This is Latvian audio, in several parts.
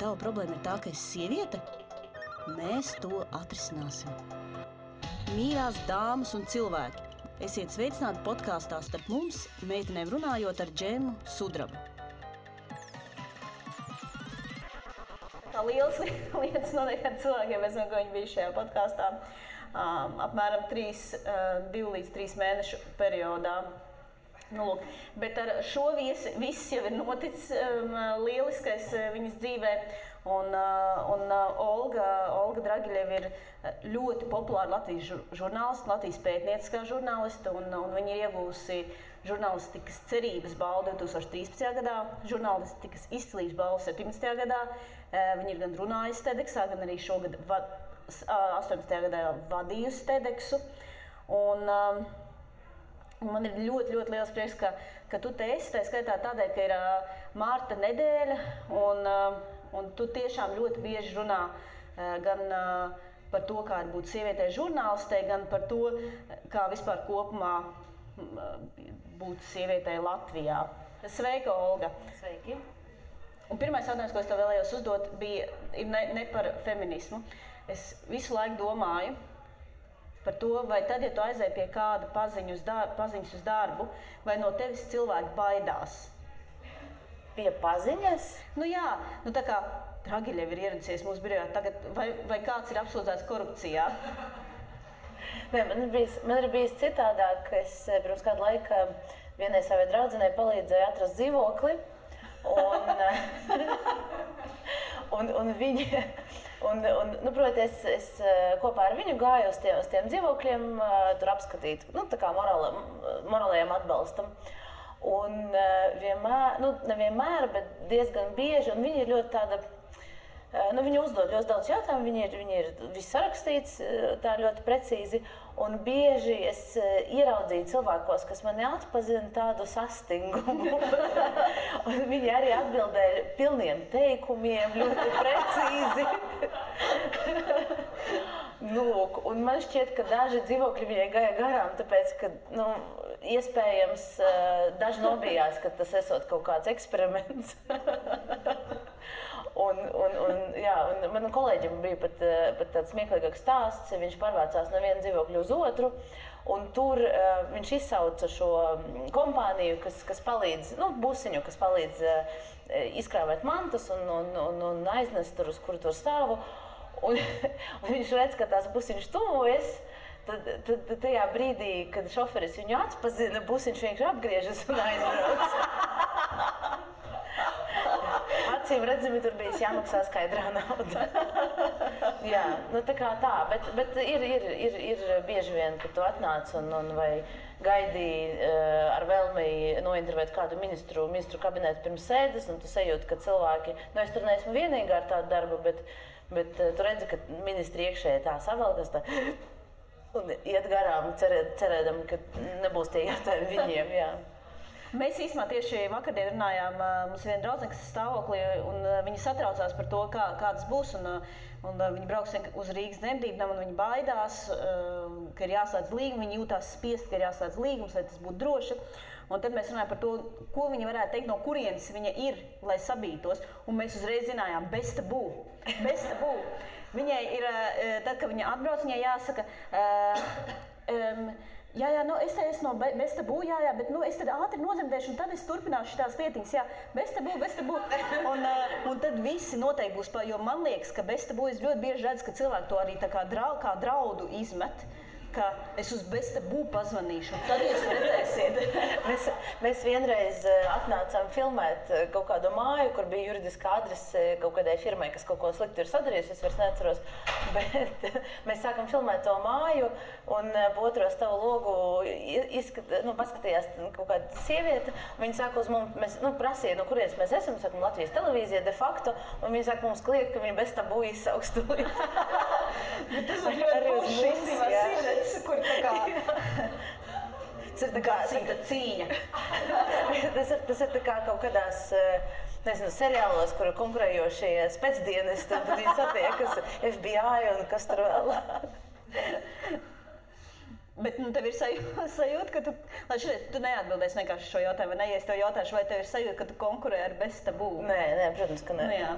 tava problēma ir tā, ka esi sieviete? Mēs to atrisināsim. Mīļās dāmas un cilvēki, esiet sveicināti podkāstā Starp mums, meitenēm runājot ar Džemu Sudrabu. Tā lielas lietas notiek ar cilvēkiem, es zinu, ka viņi bija šajā podkāstā apmēram 2 līdz 3 mēnešu periodā. Nu, lūk, bet ar šo viss jau ir noticis lieliskais viņas dzīvē, un Olga Dragiļeva ir ļoti populāra Latvijas žurnāliste, Latvijas pētnieciskā žurnāliste, un viņa ir iegūsi žurnālistikas cerības balvu 2013. gadā, žurnālistikas izcilības balvu 17. gadā. Viņa ir gan runājusi TEDxā, gan arī šogad 18. gadā vadījusi TEDxu. Un man ir ļoti liels prieks, ka tu te esi, tā skaitā tādēļ, ka ir Mārta nedēļa, un tu tiešām ļoti bieži runā gan par to, kā ir būt sievietei žurnālistei, gan par to, kā vispār kopumā būt sievietei Latvijā. Sveika, Olga! Sveiki! Un pirmais jautājums, ko es tev vēlējos uzdot, ir ne par feminismu. Es visu laiku domāju par to, vai tad, ja tu aizēji pie kāda paziņas uz darbu, vai no tevis cilvēki baidās? Pie paziņas? Nu jā, tā kā Dragiļeva ir ieradusies mūsu birojā tagad, vai kāds ir apsūdzēts korupcijā? Nē, man ir bijis citādāk. Es pirms kādu laiku vienai savai draudzenei palīdzēju atrast dzīvokli, un viņa... proti, es kopā ar viņu gāju uz tiem dzīvokļiem, tur apskatīt, tā kā morālajiem atbalstam. Un nevienmēr, bet diezgan bieži, un viņa ir ļoti tāda, viņa uzdod ļoti daudz jautājumu, viņa ir viss sarakstīts tā ļoti precīzi, un bieži es ieraudzīju cilvēkos, kas mani atpazina tādu sastingumu. Un viņi arī atbildēja pilniem teikumiem, ļoti precīzi. Lūk, un man šķiet, ka daži dzīvokļi viņai gāja garām, tāpēc, ka, iespējams, daži nobijās, ka tas esot kaut kāds eksperiments. Un manam kolēģim bija pat tāds smieklīgāks stāsts. Viņš pārvācās no viena dzīvokļa uz otru, un tur viņš izsauca šo kompāniju, kas palīdz, busiņu, kas palīdz izkrāvēt mantas un aiznest tur, uz kuru tur stāvu. Un viņš redz, ka tās busiņš tuvojas. Tad tajā brīdī, kad šoferis viņu atpazina, busiņš vienkārši apgriežas un aizbrauc. Acīm redzami, tur bija jāmaksā skaidrā nauda. Jā, tā kā tā, bet ir bieži vien, kad tu atnāc un vai gaidīji ar vēlmi nointervēt kādu ministru kabinetu pirms sēdes, un tu sajūti, ka cilvēki, es tur neesmu vienīgā ar tādu darbu, bet tu redzi, ka ministri iekšēji tā savalkas tā un iet garām, cerēdam, ka nebūs tie jautājumi viņiem, jā. Mēs īstenībā tieši vakardien runājām, mums viena draudzene, kas ir stāvoklī, un viņi satraucās par to, kā tas būs, un viņi brauks uz Rīgas dzemdībām, un viņi baidās, ka ir jāslēdz līgums, viņi jūtās spiest, ka ir jāslēdz līgums, lai tas būtu droši. Un tad mēs runājām par to, ko viņi varētu teikt, no kurienes viņa ir, lai sabītos, un mēs uzreiz zinājām, bez tabū. Viņai ir, tad, kad viņa atbrauc, viņai jāsaka, es te esmu no bez tabū, bet es tad ātri nozemdēšu, un tad es turpināšu šitās lietiņas, bez tabū. Un tad visi noteikti būs, jo man liekas, ka bez tabū es ļoti bieži redzu, ka cilvēki to arī tā kā draudu izmet, ka es uz bez tabū pazvanīšu, un tad jūs redzēsiet. Mēs vienreiz atnācām filmēt kaut kādu māju, kur bija juridiskā adrese kaut kādai firmai, kas kaut ko slikti ir sadarījusi, es vairs neatceros, bet mēs sākam filmēt to māju, un pa otro stavu logu paskatījās kaut kāda sieviete, viņa sāka uz mums, prasīja, no kurienes mēs esam, sākam Latvijas televīzija de facto, un viņa sāka mums kliegt, ka viņa bez tabū izsauks tūlīt. Tas ir ļoti forši, kur tā kā... Tas ir tā kā cīņa. Tas ir tā kā kaut kādās, seriālos, kur konkurējošie spēcdienesti, tad viņi satiekas FBI un kas tur vēl. Bet tev ir sajūta, ka tu neatbildēsi vienkārši šo jautājumu, vai ne? Ja es tev jautāšu, vai tev ir sajūta, ka tu konkurē ar bez tabū? Nē, protams, ka nē. Jā.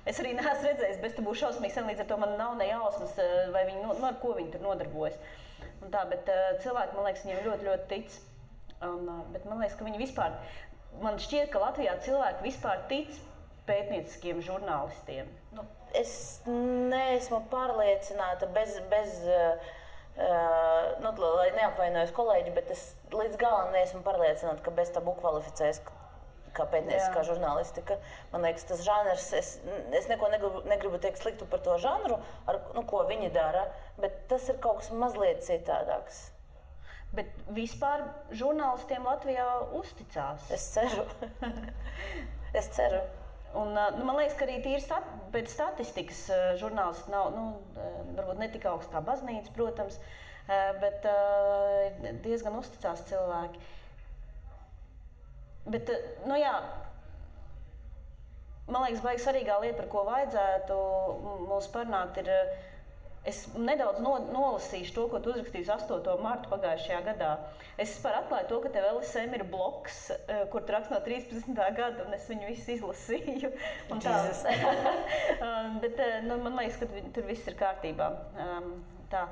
Es arī neesmu redzējis, bet tu būsi šausmīgi sen, līdz ar to man nav ne jausmas, vai viņi, ar ko viņi tur nodarbojas. Un tā, bet cilvēki, man liekas, viņiem ļoti, ļoti tic. Bet man liekas, ka viņi vispār, man šķiet, ka Latvijā cilvēki vispār tic pētnieciskiem žurnālistiem. Nu, es neesmu pārliecināta lai neapvainojos kolēģi, bet es līdz galam neesmu pārliecināta, ka bez tabu kvalificējas kā pētnieciskā žurnālistika. Man liekas, tas žanrs, es neko negribu teikt sliktu par to žanru, ko viņi dara, bet tas ir kaut kas mazliet citādāks. Bet vispār žurnālistiem Latvijā uzticās? Es ceru. Es ceru. Un, man liekas, ka arī tīri pēc statistikas žurnālisti nav, varbūt ne tik augsts kā baznīca, protams, bet diezgan uzticās cilvēki. Bet, man liekas, baigi svarīgā lieta, par ko vajadzētu mums parunāt, ir, es nedaudz nolasīšu to, ko tu uzrakstīji 8. martu pagājušajā gadā. Es vispār atklāju to, ka tev LSM ir bloks, kur tu raksti no 13. gada, un es viņu visu izlasīju. Un tā, bet man liekas, ka tur viss ir kārtībā. Tā.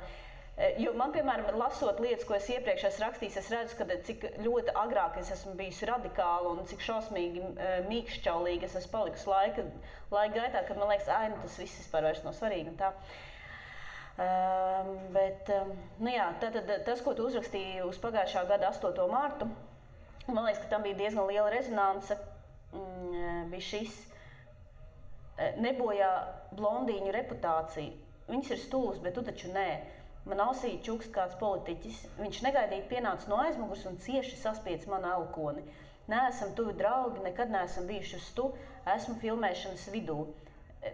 Jo man, piemēram, lasot lietas, ko es iepriekš esmu rakstījis, es redzu, ka cik ļoti agrāk es esmu bijusi radikāla un cik šausmīgi mīkšķaulīgi es esmu palikusi laika gaitā, kad man liekas, tas viss vispār vairs nav svarīgi un tā. Bet, tātad tas, ko tu uzrakstīji uz pagājušā gada 8. martu, man liekas, ka tam bija diezgan liela rezonance, bija šis nebojā blondīņu reputāciju. Viņas ir stūlis, bet tu taču nē. Man ausī čukst kāds politiķis. Viņš negaidīti pienāca no aizmugures un cieši saspiedz manu elkoni. Neesam tuvi draugi, nekad neesam bijuši uz tu, esmu filmēšanas vidū.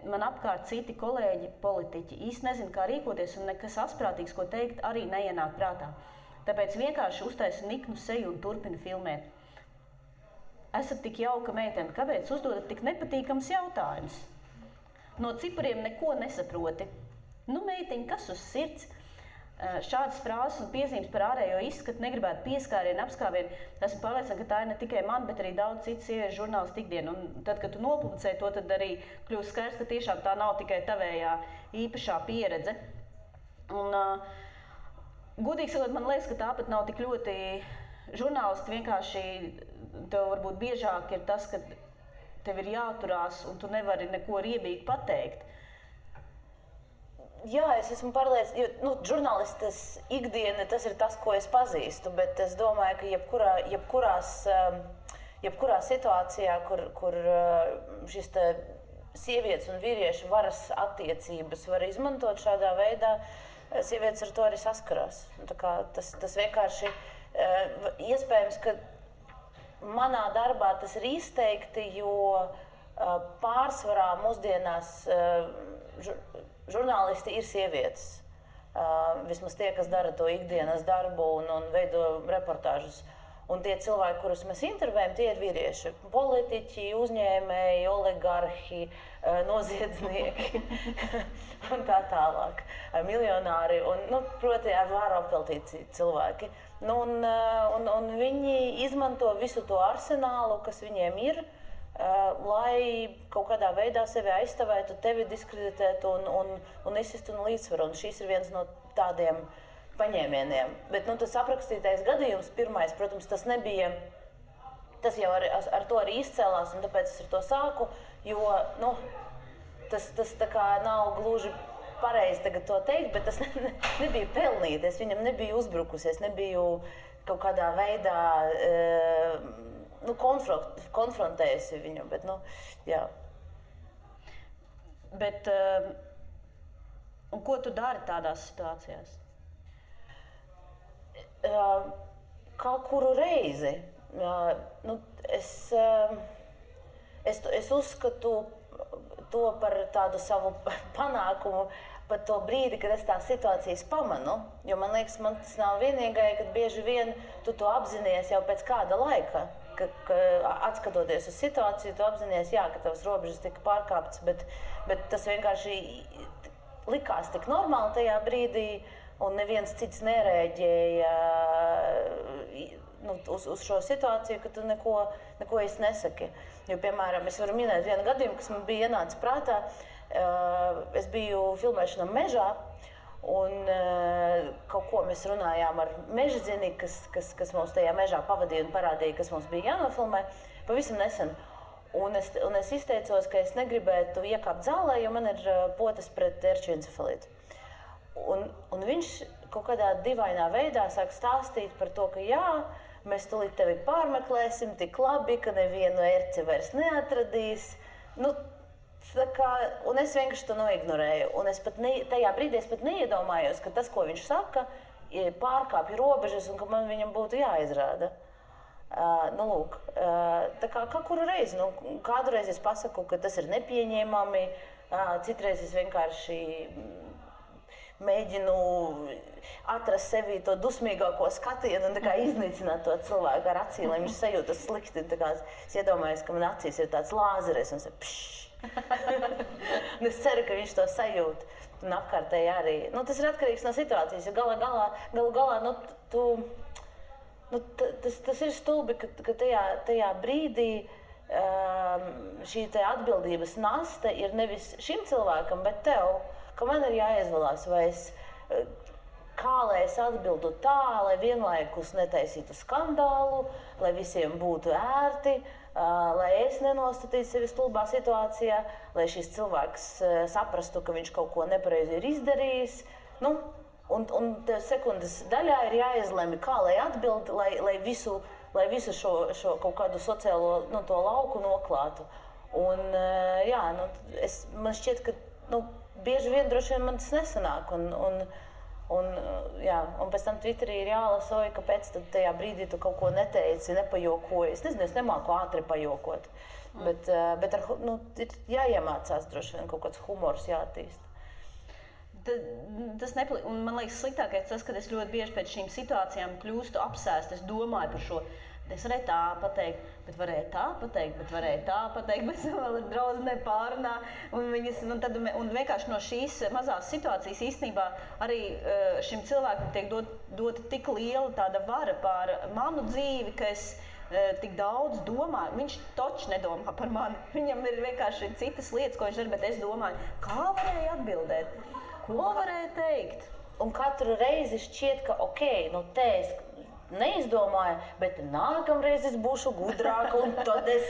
Man apkārt citi kolēģi, politiķi, īsti nezinu, kā rīkoties un nekas asprātīgs, ko teikt, arī neienāk prātā. Tāpēc vienkārši uztaisu niknu seju un turpinu filmēt. Esat tik jauka meitene, kāpēc uzdodat tik nepatīkams jautājums? No cipariem neko nesaproti. Meitiņ, kas uz sirds? Šādas frāzes un piezīmes par ārējo izskatu negribētu pieskārienu, apskāvienu. Esmu pārliecināta, ka tā ir ne tikai man, bet arī daudz citu sieviešu žurnālistu ikdienu. Un tad, kad tu nopublicēji to, tad arī kļūst skaidrs, ka tiešām tā nav tikai tavējā īpašā pieredze. Un, godīgi sakot, man liekas, ka tāpat nav tik ļoti žurnālisti. Vienkārši tev varbūt biežāk ir tas, ka tev ir jāturās un tu nevari neko riebīgi pateikt. Jā, es esmu pārliecināta, jo žurnālistes ikdiena tas ir tas, ko es pazīstu, bet es domāju, ka jebkurā situācijā, kur šis sievietes un vīriešu varas attiecības var izmantot šādā veidā, sievietes ar to arī saskarās. Tā kā tas vienkārši iespējams, ka manā darbā tas ir izteikti, jo pārsvarā mūsdienās žurnālisti ir sievietes. Vismaz tie, kas dara to ikdienas darbu un veido reportāžus. Un tie cilvēki, kurus mēs intervējam, tie ir vīrieši. Politiķi, uzņēmēji, oligarhi, noziedznieki un tā tālāk. Miljonāri un, proti, ar vāru apveltīti cilvēki. Un viņi izmanto visu to arsenālu, kas viņiem ir, lai kaut kādā veidā sevi aizstāvētu, tevi diskreditētu un izsistu no līdzsvaru. Un šis ir viens no tādiem paņēmieniem. Bet tas aprakstītais gadījums pirmais, protams, tas nebija, tas jau ar to arī izcēlās, un tāpēc es ar to sāku, jo tas tā kā nav gluži pareizi tagad to teikt, bet tas nebija pelnīti, es viņam nebiju uzbrukusi, es nebiju kaut kādā veidā konfrontējusi viņu, bet, jā. Bet, un ko tu dari tādās situācijās? Kā kuru reizi. Es uzskatu to par tādu savu panākumu, pat to brīdi, kad es tās situācijas pamanu, jo man liekas, man tas nav vienīgai, kad bieži vien tu to apzinies jau pēc kāda laika. Ka atskatoties uz situāciju, tu apzinies, ka tavas robežas tika pārkāptas, bet tas vienkārši likās tik normāli tajā brīdī, un neviens cits nerēģēja uz šo situāciju, ka tu neko īsti nesaki. Jo, piemēram, es varu minēt vienu gadījumu, kas man bija ienācis prātā. Es biju filmēšanā mežā, un kaut ko mēs runājām ar mežadzini, kas mums tajā mežā pavadīja un parādīja, kas mums bija jānofilmē pavisam nesen. Un es izteicos, ka es negribētu iekāpt zālē, jo man ir potes pret ērču encefalītu. Un viņš kaut kādā dīvainā veidā sāk stāstīt par to, ka jā, mēs tūlīt tevi pārmeklēsim tik labi, ka nevienu ērci vairs neatradīs. Nu, un es vienkārši to noignorēju. Un tajā brīdī es pat neiedomājos, ka tas, ko viņš saka, pārkāpja robežas un ka man viņam būtu jāizrāda. Lūk, tā kā kuru reizi, kādu reizi es pasaku, ka tas ir nepieņēmami, citreiz es vienkārši mēģinu atrast sevī to dusmīgāko skatienu un iznīcināt to cilvēku ar acīm, lai viņš sajūtas slikti. Es iedomājos, ka man acīs ir tāds lāzeris un es ceru, ka viņš to sajūt. Un apkārtēji arī. Tas ir atkarīgs no situācijas, jo galu galā tas ir stulbi, ka tajā brīdī šī atbildības nasta ir nevis šim cilvēkam, bet tev, ka man ir jāizvēlās, kā lai es atbildu tā, lai vienlaikus netaisītu skandālu, lai visiem būtu ērti, lai es nenostatītu sevi stulbā situācijā, lai šis cilvēks saprastu, ka viņš kaut ko nepareizi ir izdarījis. Un tev sekundes daļā ir jāizlemj, kā lai atbild, lai visu šo kaut kādu sociālo to lauku noklātu. Un, man šķiet, ka bieži vien droši vien man tas nesanāk. Un pēc tam Twitterī ir jālasa, kāpēc tajā brīdī tu kaut ko neteici, nepajokoji. Es nezinu, es nemāku ātri pajokot. Bet ir jāiemācās droši vien kaut kāds humors jāattīst. Un man liekas, sliktākais tas, ka es ļoti bieži pēc šīm situācijām kļūstu apsēst. Es domāju par šo. Es varēju tā pateikt, bet varēju tā pateikt, bet varēju tā pateikt, bet vēl ir draudzene pārunā. Un vienkārši no šīs mazās situācijas īstenībā arī šim cilvēkam tiek dota tik liela tāda vara pār manu dzīvi, ka es tik daudz domāju. Viņš taču nedomā par mani. Viņam ir vienkārši citas lietas, ko viņš dara, bet es domāju, kā varēju atbildēt, ko varēju teikt. Un katru reizi šķiet, ka te es neizdomāju, bet nākamreiz es būšu gudrāka un tad es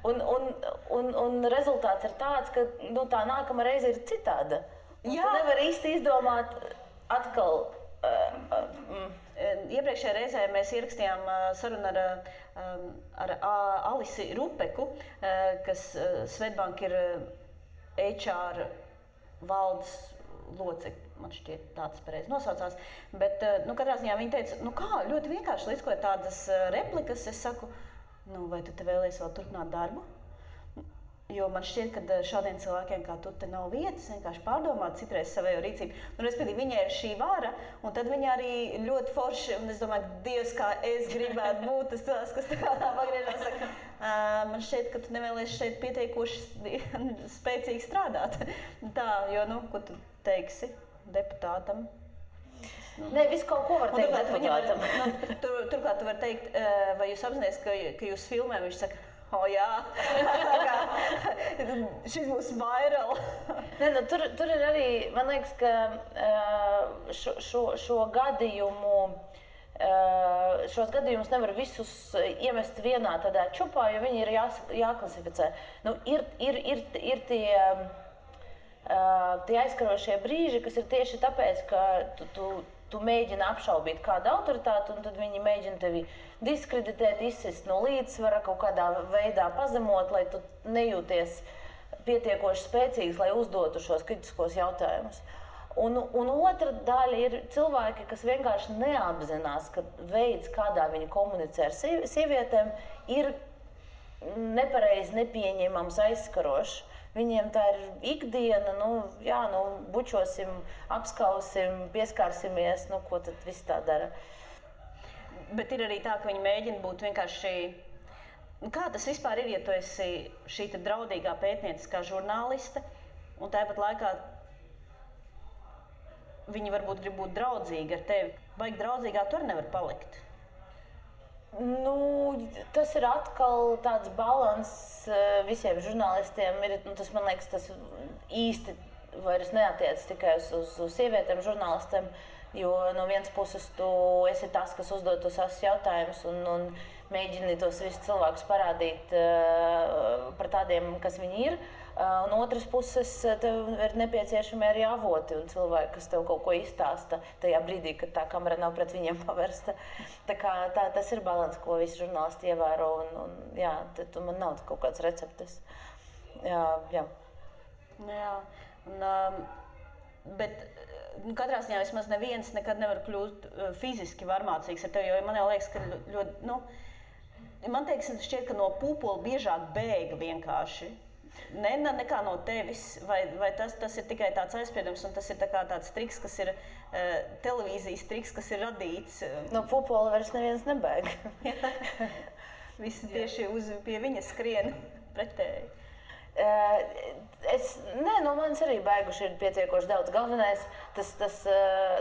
un rezultāts ir tāds, ka tā nākamā reize ir citāda. Tu nevari īsti izdomāt atkal. Iepriekšējā reizē mēs ierakstījām sarunu ar Alisi Rupeku, kas Swedbank ir HR valdes locekļi. Man šķiet, tāds pareizi nosaucās. Bet, katrā ziņā viņa teica, kā, ļoti vienkārši līdzkoja tādas replikas. Es saku, vai tu te vēlies vēl turpināt darbu? Jo man šķiet, ka šādiem cilvēkiem kā tu te nav vietas, vienkārši pārdomāt citreiz savējo rīcību. Respektīvi, viņai ir šī vara, un tad viņa arī ļoti forši, un es domāju, Dievs, kā es gribētu būt tas cilvēks, kas tā pagriežās, saka, man šķiet, ka tu nevēlies šeit pietiekoši spēcīgi strādāt. Tā, jo, ko tu teiksi deputātam? Nē, visu kaut ko var teikt deputātam. Turklāt tu vari teikt, vai jūs apzināties, ka jūs filmē, viņš saka, jā, šis būs viral. Tur ir arī, man liekas, ka šo gadījumu, šos gadījumus nevar visus iemest vienā tādā čupā, jo viņi ir jāklasificē. Ir tie aizskarošie brīži, kas ir tieši tāpēc, ka tu mēģini apšaubīt kādu autoritāti, un tad viņi mēģina tevi diskreditēt, izsist no līdzsvara, kaut kādā veidā pazemot, lai tu nejūties pietiekoši spēcīgs, lai uzdotu šos kritiskos jautājumus. Un otra daļa ir cilvēki, kas vienkārši neapzinās, ka veids, kādā viņi komunicē ar sievietēm, ir nepareizi, nepieņemams, aizskarošs. Viņiem tā ir ikdiena, bučosim, apskausim, pieskārsimies, ko tad viss tā dara. Bet ir arī tā, ka viņi mēģina būt vienkārši... Kā tas vispār ir, ja tu esi šī draudīgā pētnieciskā žurnāliste, un tāpat laikā viņi varbūt grib būt draudzīgi ar tevi. Baigi draudzīgā tu arī nevar palikt. Tas ir atkal tāds balans visiem žurnālistiem. Tas, man liekas, tas īsti vairs neatiec tikai uz sievietēm žurnālistiem, jo no vienas puses tu esi tas, kas uzdod tos jautājumus un mēģini tos visus cilvēkus parādīt par tādiem, kas viņi ir. Un otras puses, tev ir nepieciešami arī avoti un cilvēki, kas tev kaut ko izstāsta tajā brīdī, kad tā kamera nav pret viņiem pavērsta. Tas ir balans, ko visi žurnālisti ievēro. Man nav kaut kāds receptes. Jā. Bet katrā ziņā vismaz neviens nekad nevar kļūt fiziski varmācīgs ar tevi, jo man jau liekas, ka ļoti, man šķiet, ka no pūpola biežāk bēga vienkārši. Nekā no tevis, vai tas ir tikai tāds aizspriedums, un tas ir tāds triks, kas ir televīzijas triks, kas ir radīts. No pūpola vairs neviens nebēg. Visi tieši pie viņa skrien pretēji. Manis arī bēguši ir pietiekoši daudz.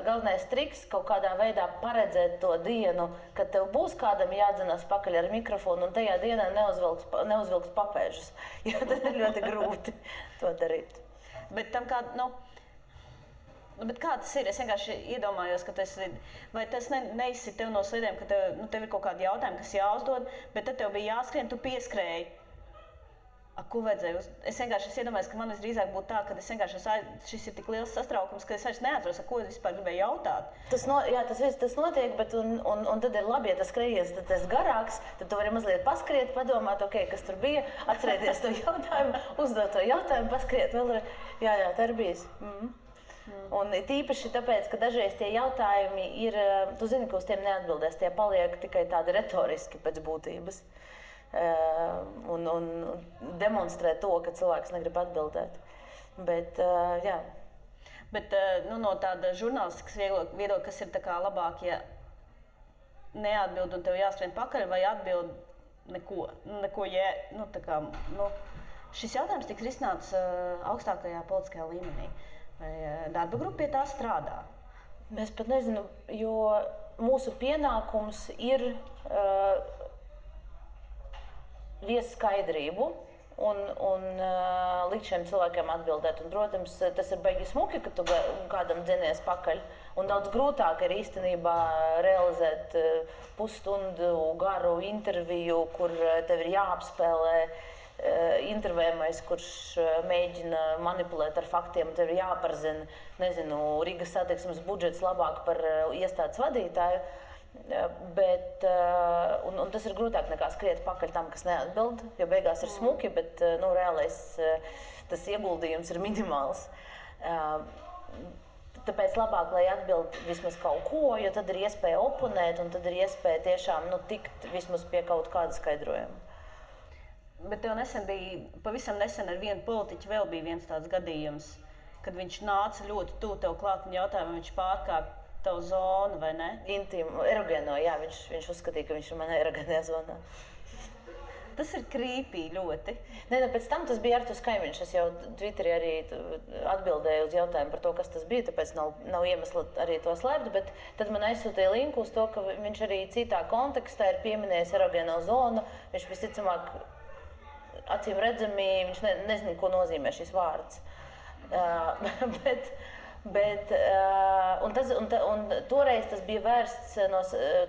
Galvenais triks kaut kādā veidā paredzēt to dienu, kad tev būs kādam jādzenās pakaļ ar mikrofonu un tajā dienā neuzvilks papēžus, jo tad ir ļoti grūti to darīt. Bet tam bet kā tas ir? Es vienkārši iedomājos, ka vai tas neizsit tev no sliedēm, ka tev ir kaut kādi jautājumi, kas jāuzdod, bet tad tev bija jāskrien, tu pieskrēji. Ko vajadzēja? Es iedomājos, ka man visdrīzāk būtu tā, ka šis ir tik liels satraukums, ka es vairs neatceros, ko es vispār gribēju jautāt. Tas notiek, bet un tad ir labi, ja tas skrejies, tad tas garāks, tad tu vari mazliet paskriet, padomāt, kas tur bija, atcerēties to jautājumu, uzdot to jautājumu, paskriet vēl. Jā, tā ir bijis. Un tīpaši tāpēc, ka dažreiz tie jautājumi ir, tu zini, ka uz tiem neatbildēs, tie paliek tikai tādi retoriski pēc būtības. Un demonstrē to, ka cilvēks negrib atbildēt. Bet, jā. Bet no tāda žurnālistikas viedokļa, kas ir labāk, ja neatbild un tev jāskrien pakaļ, vai atbild neko šis jautājums tiks risināts augstākajā politiskajā līmenī. Vai darba grupa pie tā strādā? Es pat nezinu, jo mūsu pienākums ir viest skaidrību un likt šiem cilvēkiem atbildēt. Un, protams, tas ir baigi smuki, ka tu kādam dzenies pakaļ. Un daudz grūtāk ir īstenībā realizēt pusstundu garu interviju, kur tev ir jāapspēlē intervējamais, kurš mēģina manipulēt ar faktiem. Tev ir jāparzina, Rīgas satiksmes budžets labāk par iestādes vadītāju. Bet, un tas ir grūtāk nekā skriet pakaļ tam, kas neatbild, jo beigās ir smuki, bet reālais tas ieguldījums ir minimāls. Tāpēc labāk, lai atbild vismaz kaut ko, jo tad ir iespēja oponēt un tad ir iespēja tiešām tikt vismaz pie kaut kāda skaidrojuma. Bet tev pavisam nesen ar vienu politiķu vēl bija viens tāds gadījums, kad viņš nāca ļoti tuvu tev klāt un jautāja, vai viņš pārkāp tavu zonu, vai ne? Intīmu, erogēno, jā, viņš uzskatīja, ka viņš ir manā erogēnajā zonā. Tas ir creepy ļoti. Pēc tam tas bija Arturs Kaimiņš. Es jau Twitterī arī atbildēju uz jautājumu par to, kas tas bija, tāpēc nav iemesla arī to slēpt, bet tad man aizsūtīja linku uz to, ka viņš arī citā kontekstā ir pieminējis erogēno zonu. Viņš visticamāk, acīm redzami, viņš nezina, ko nozīmē šis vārds. Un toreiz tas bija vērsts,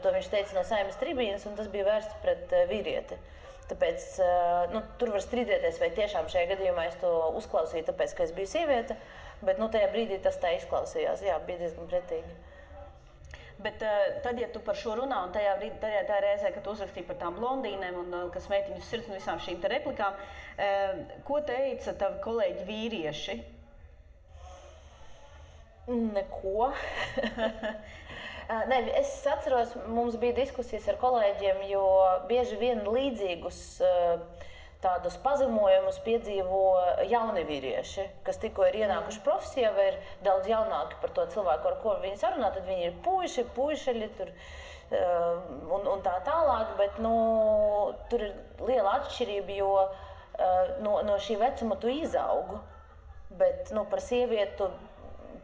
to viņš teica no Saeimas tribīnes, un tas bija vērsts pret vīrieti. Tāpēc tur var strīdēties, vai tiešām šajā gadījumā es to uzklausīju, tāpēc, ka es biju sieviete, bet tajā brīdī tas tā izklausījās. Jā, bija diezgan pretīgi. Bet tad, ja tu par šo runā, un tajā reizē, kad tu uzrakstīji par tām blondīnēm un kas meitiņu sirds un visām šīm te replikām, ko teica tavi kolēģi vīrieši? Neko. Es atceros, mums bija diskusijas ar kolēģiem, jo bieži vien līdzīgus tādus pazemojumus piedzīvo jauni vīrieši, kas tikko ir ienākuši profesijā vai ir daudz jaunāki par to cilvēku, ar ko viņi sarunā, tad viņi ir puišeļi tur un tā tālāk, bet tur ir liela atšķirība, jo no šī vecuma tu izaugu, bet par sievietu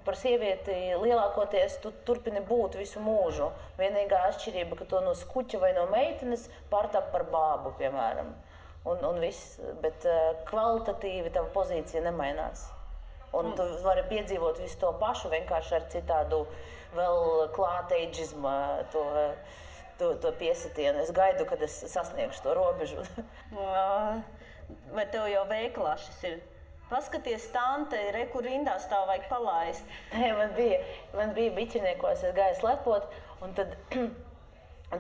par sievieti lielākoties tu turpini būt visu mūžu. Vienīgā atšķirība, ka to no skuķa vai no meitenes pārtap par bābu, piemēram. Un viss, bet kvalitatīvi tava pozīcija nemainās. Un tu vari piedzīvot visu to pašu, vienkārši ar citādu vēl klāteidžismu to piesitienu. Es gaidu, kad es sasniegšu to robežu. Vai tev jau veikalā šis ir? Paskaties, tante, kur rindā stāv, vajag palaist. Nē, man bija biķiniekos, es gāju slepot, un tad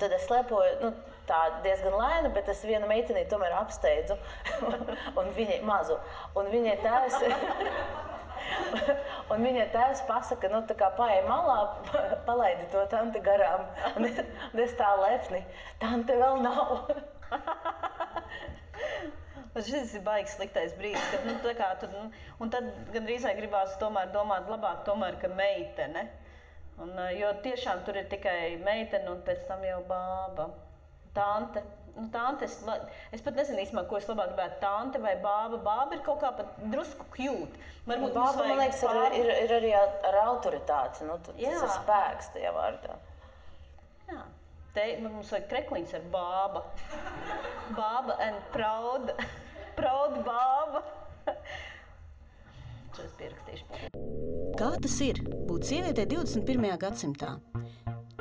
es slepoju, tā diezgan lēni, bet es vienu meitenī tomēr apsteidzu, un viņai mazu. Un viņai tēvs pasaka, tā kā paej malā, palaidi to tanti garām. Un es tā lepni, tante vēl nav. Šis ir baigs sliktais brīdis, kad un tad gandrīz vai gribās tomēr domāt labāk, ka meitene. Jo tiešām tur ir tikai meitene un pēc tam jau bāba. Tante. Tante, es pat nezinu īstenībā, ko es labāk gribētu, tante vai bāba. Bāba ir kaut kā pat drusku cute. Bāba, man liekas, ir arī ar autoritāti. Tas ir spēks tajā vārdā. Jā. Te mums vajag krekliņš ar bāba. Bāba and proud. Proud bāba. Šo es pierakstīšu. Kā tas ir būt sievietei 21. gadsimtā?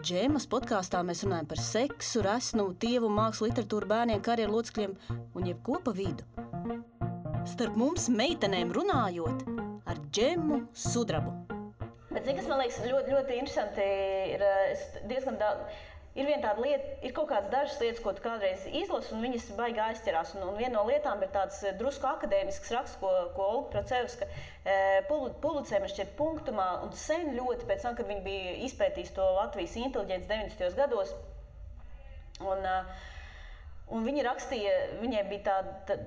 Džēmas podkāstā mēs runājam par seksu, resnumu, tievu, mākslu, literatūru, bērniem, karjeru locekļiem un jebko pa vidu. Starp mums meitenēm runājot ar Džemu Sudrabu. Bet zini, kas man liekas ļoti, ļoti interesanti, ir diezgan daudz. Ir viena tāda lieta, ir kaut kādas dažas lietas, ko tu kādreiz izlasi, un viņas baigi aizķerās. Un viena no lietām ir tāds drusku akadēmisks raksts, ko Olga Procevska publicēja, man šķiet, Punktumā, un sen ļoti pēc tam, kad viņa bija izpētījusi to Latvijas inteliģenci 90. gados. Un viņa rakstīja, viņai bija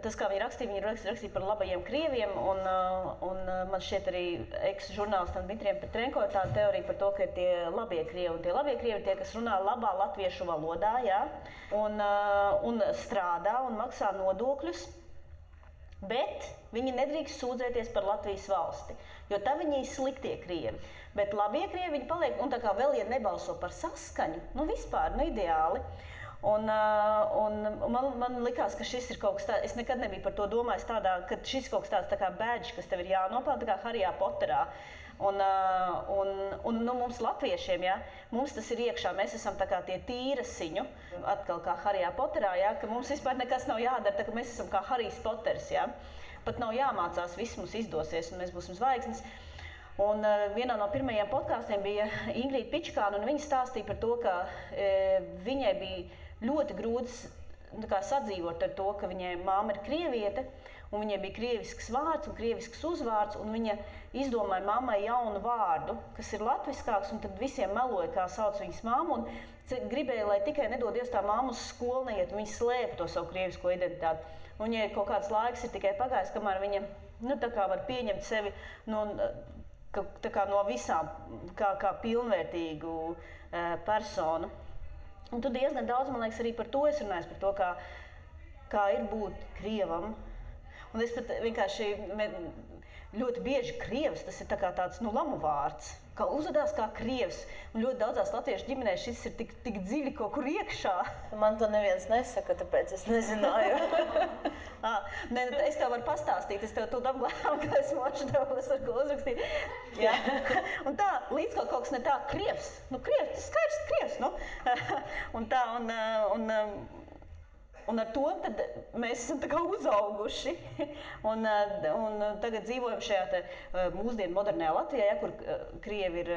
tas, kā viņa rakstīja par labajiem krieviem, un man šķiet arī eks-žurnālistam Dmitrijam Petrenko ir tāda teorija par to, ka ir tie labie krievi, un tie labie krievi ir tie, kas runā labā latviešu valodā, jā, un strādā un maksā nodokļus, bet viņi nedrīkst sūdzēties par Latvijas valsti, jo tā viņi ir sliktie krievi. Bet labie krievi viņi paliek, un tā kā vēl, ja nebalso par saskaņu, vispār, ideāli. Un man likās, ka šis ir kaut kas tāds, es nekad nebiju par to domājis tādā, ka šis ir kaut kas tāds tā kā badge, kas tev ir jānopelna, tā kā Harijā Poterā. Un mums latviešiem, ja, mums tas ir iekšā, mēs esam tā kā tie tīrasiņu, atkal kā Harijā Poterā, ja, ka mums vispār nekas nav jādara, tā ka mēs esam kā Harijs Poters, ja. Pat nav jāmācās, viss mums izdosies un mēs būsim zvaigznes. Un vienā no pirmajiem podkāstiem bija Ingrīda Pičkāna, un viņa stāstīja par to, ka viņai bija ļoti grūti sadzīvot ar to, ka viņai māma ir krieviete, un viņai bija krievisks vārds un krievisks uzvārds, un viņa izdomāja mammai jaunu vārdu, kas ir latviskāks, un tad visiem meloja, kā sauc viņas mammu, un gribēja, lai tikai nedod Dievs tā mamma uz skolu neiet, un viņa slēpa to savu krievisko identitāti. Un viņai kaut kāds laiks ir tikai pagājis, kamēr viņa tā kā var pieņemt sevi tā kā no visām, kā pilnvērtīgu personu. Un tu diezgan daudz, man liekas, arī par to es runāju, par to, kā ir būt krievam. Un es pat vienkārši ļoti bieži krievs, tas ir tāds lamu vārds, kā uzvedās kā krievs. Un ļoti daudzās latviešu ģimenēs šis ir tik dziļi kaut kur iekšā. Man to neviens nesaka, tāpēc es nezināju. Es tev varu pastāstīt, es tev tūlīt apglābu, ka es mošu tev, es varu ko uzrakstīt. Jā. Un tā, līdz kaut kas ne tā, krievs, krievs, tas skaidrs krievs, un tā, un ar to tad mēs esam tā kā uzauguši, un tagad dzīvojam šajā mūsdienu modernajā Latvijā, kur krievi ir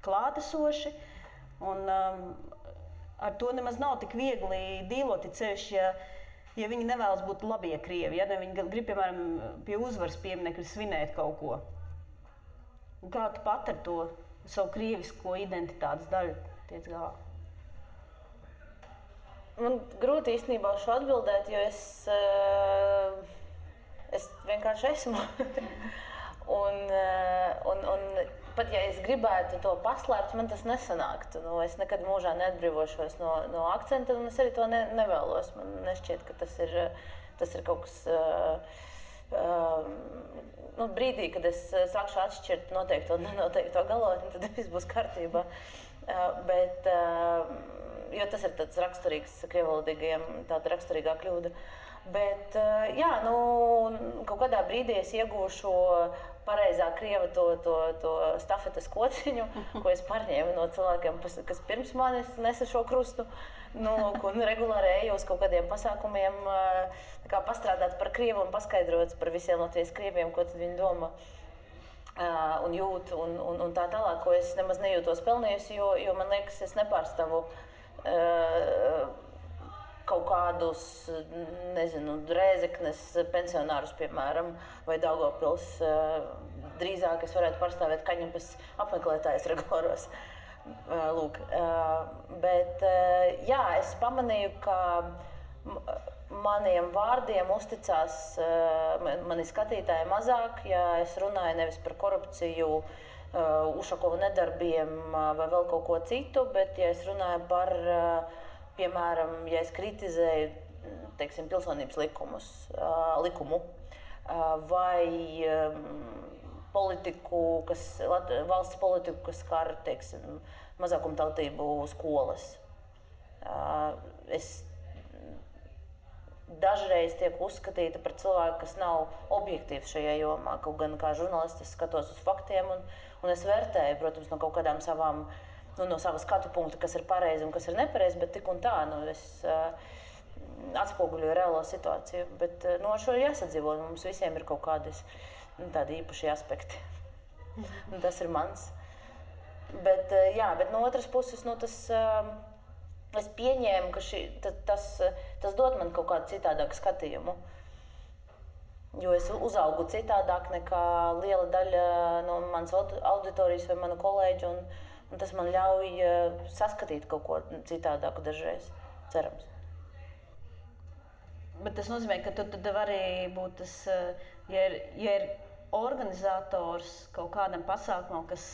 klātesoši, un ar to nemaz nav tik viegli dīlot, ceļš, ja viņi nevēlas būt labie krievi, ja viņi grib, piemēram, pie uzvaras pieminekļa svinēt kaut ko. Un kā tu pat ar to savu krievisko identitātes daļu tiec galā? Man grūti īstenībā šo atbildēt, jo es vienkārši esmu. un pat ja es gribētu to paslēpt, man tas nesanāktu. Es nekad mūžā neatbrīvošos no akcenta, un es arī to nevēlos. Man nešķiet, ka tas ir kaut kas brīdī, kad es sākšu atšķirt noteikto un nenoteikto galotni, tad viss būs kārtībā. Bet, jo tas ir tāds raksturīgs krievvalodīgajiem, tāda raksturīgā kļūda. Bet, jā, kaut kādā brīdī es iegūšu pareizā krieva to stafetes kociņu, ko es pārņēmu no cilvēkiem, kas pirms manis nesa šo krustu. Un regulāri eju uz kaut kādiem pasākumiem, pastrādāt par krievu un paskaidrot par visiem Latvijas krieviem, ko tad viņi domā un jūt un tā tālāk, ko es nemaz nejūtos pelnījusi, jo man liekas, es nepārstāvu kaut kādus, nezinu, Rēzeknes pensionārus, piemēram, vai Daugavpils. Drīzāk es varētu pārstāvēt Kaņepes apmeklētājus regulāros. Lūk. Bet, jā, es pamanīju, ka maniem vārdiem uzticās mani skatītāji mazāk, ja es runāju nevis par korupciju, Ušakova nedarbiem vai vēl kaut ko citu, bet ja es runāju par piemēram, ja es kritizēju, teiksim, pilsonības likumu vai politiku, valsts politiku, kas skar, teiksim, mazākumtautību skolas. Es dažreiz tiek uzskatīta par cilvēku, kas nav objektīvs šajā jomā, kaut gan kā žurnālists es skatos uz faktiem un es vērtēju, protams, no kaut kādām savām no sava skatu punkta, kas ir pareizi un kas ir nepareizi, bet tik un tā, es atspoguļoju reālo situāciju. Bet ar šo ir jāsadzīvo, mums visiem ir kaut kādi tādi īpaši aspekti. Un tas ir mans. Bet, jā, bet no otras puses, es pieņēmu, ka tas dod man kaut kādu citādāku skatījumu. Jo es uzaugu citādāk nekā liela daļa no manas auditorijas vai manu kolēģu, un tas man ļauj saskatīt kaut ko citādāku dažreiz, cerams. Bet tas nozīmē, ka tu tad vari būt tas, ja ir organizators kaut kādam pasākumam, kas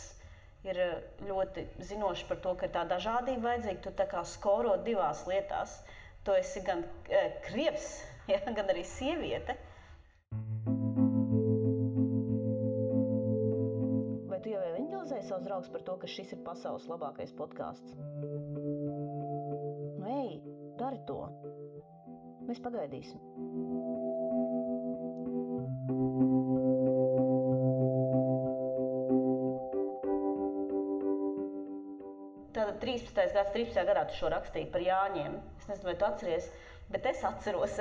ir ļoti zinošs par to, ka ir tā dažādība vajadzīga, tu tā kā skoro divās lietās. Tu esi gan krievs, ja, gan arī sieviete. Tu jau evanģelizēji savus draugus par to, ka šis ir pasaules labākais podcasts? Ej, dari to. Mēs pagaidīsim. Tātad 13. gadā tu šo rakstīji par Jāņiem. Es nezinu, vai tu atceries, bet es atceros.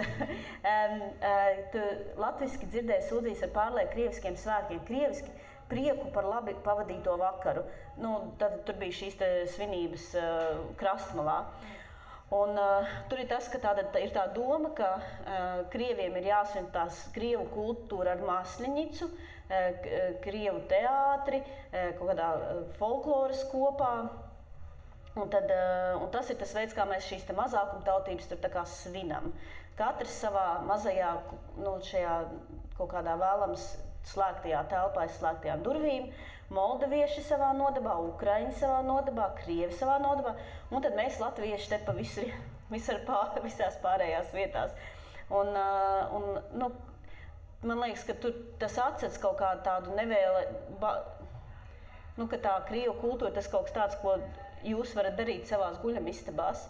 Tu latviski dzirdēji sūdzīs ar pārlieku krieviskiem svētkiem. Krieviski prieku par labi pavadīto vakaru. Tad tur bija šīs svinības krastmalā. Un tur ir tas, ka ir tā doma, ka krieviem ir jāsvin tās krievu kultūra ar Masļenicu, krievu teātri, kaut kādā folkloras kopā. Un tas ir tas veids, kā mēs šīs mazākumtautības tur tā kā svinam. Katrs savā mazajā, šajā kaut kādā vēlams slēgtajā telpā, slēgtajām durvīm, moldavieši savā nodabā, ukraiņi savā nodabā, krievi savā nodabā, un tad mēs latvieši te pa visās pārējās vietās. Un man liekas, ka tas atcets kaut kādu tādu ka tā krievu kultūra, tas kaut kas tāds, ko jūs varat darīt savās guļamistabās,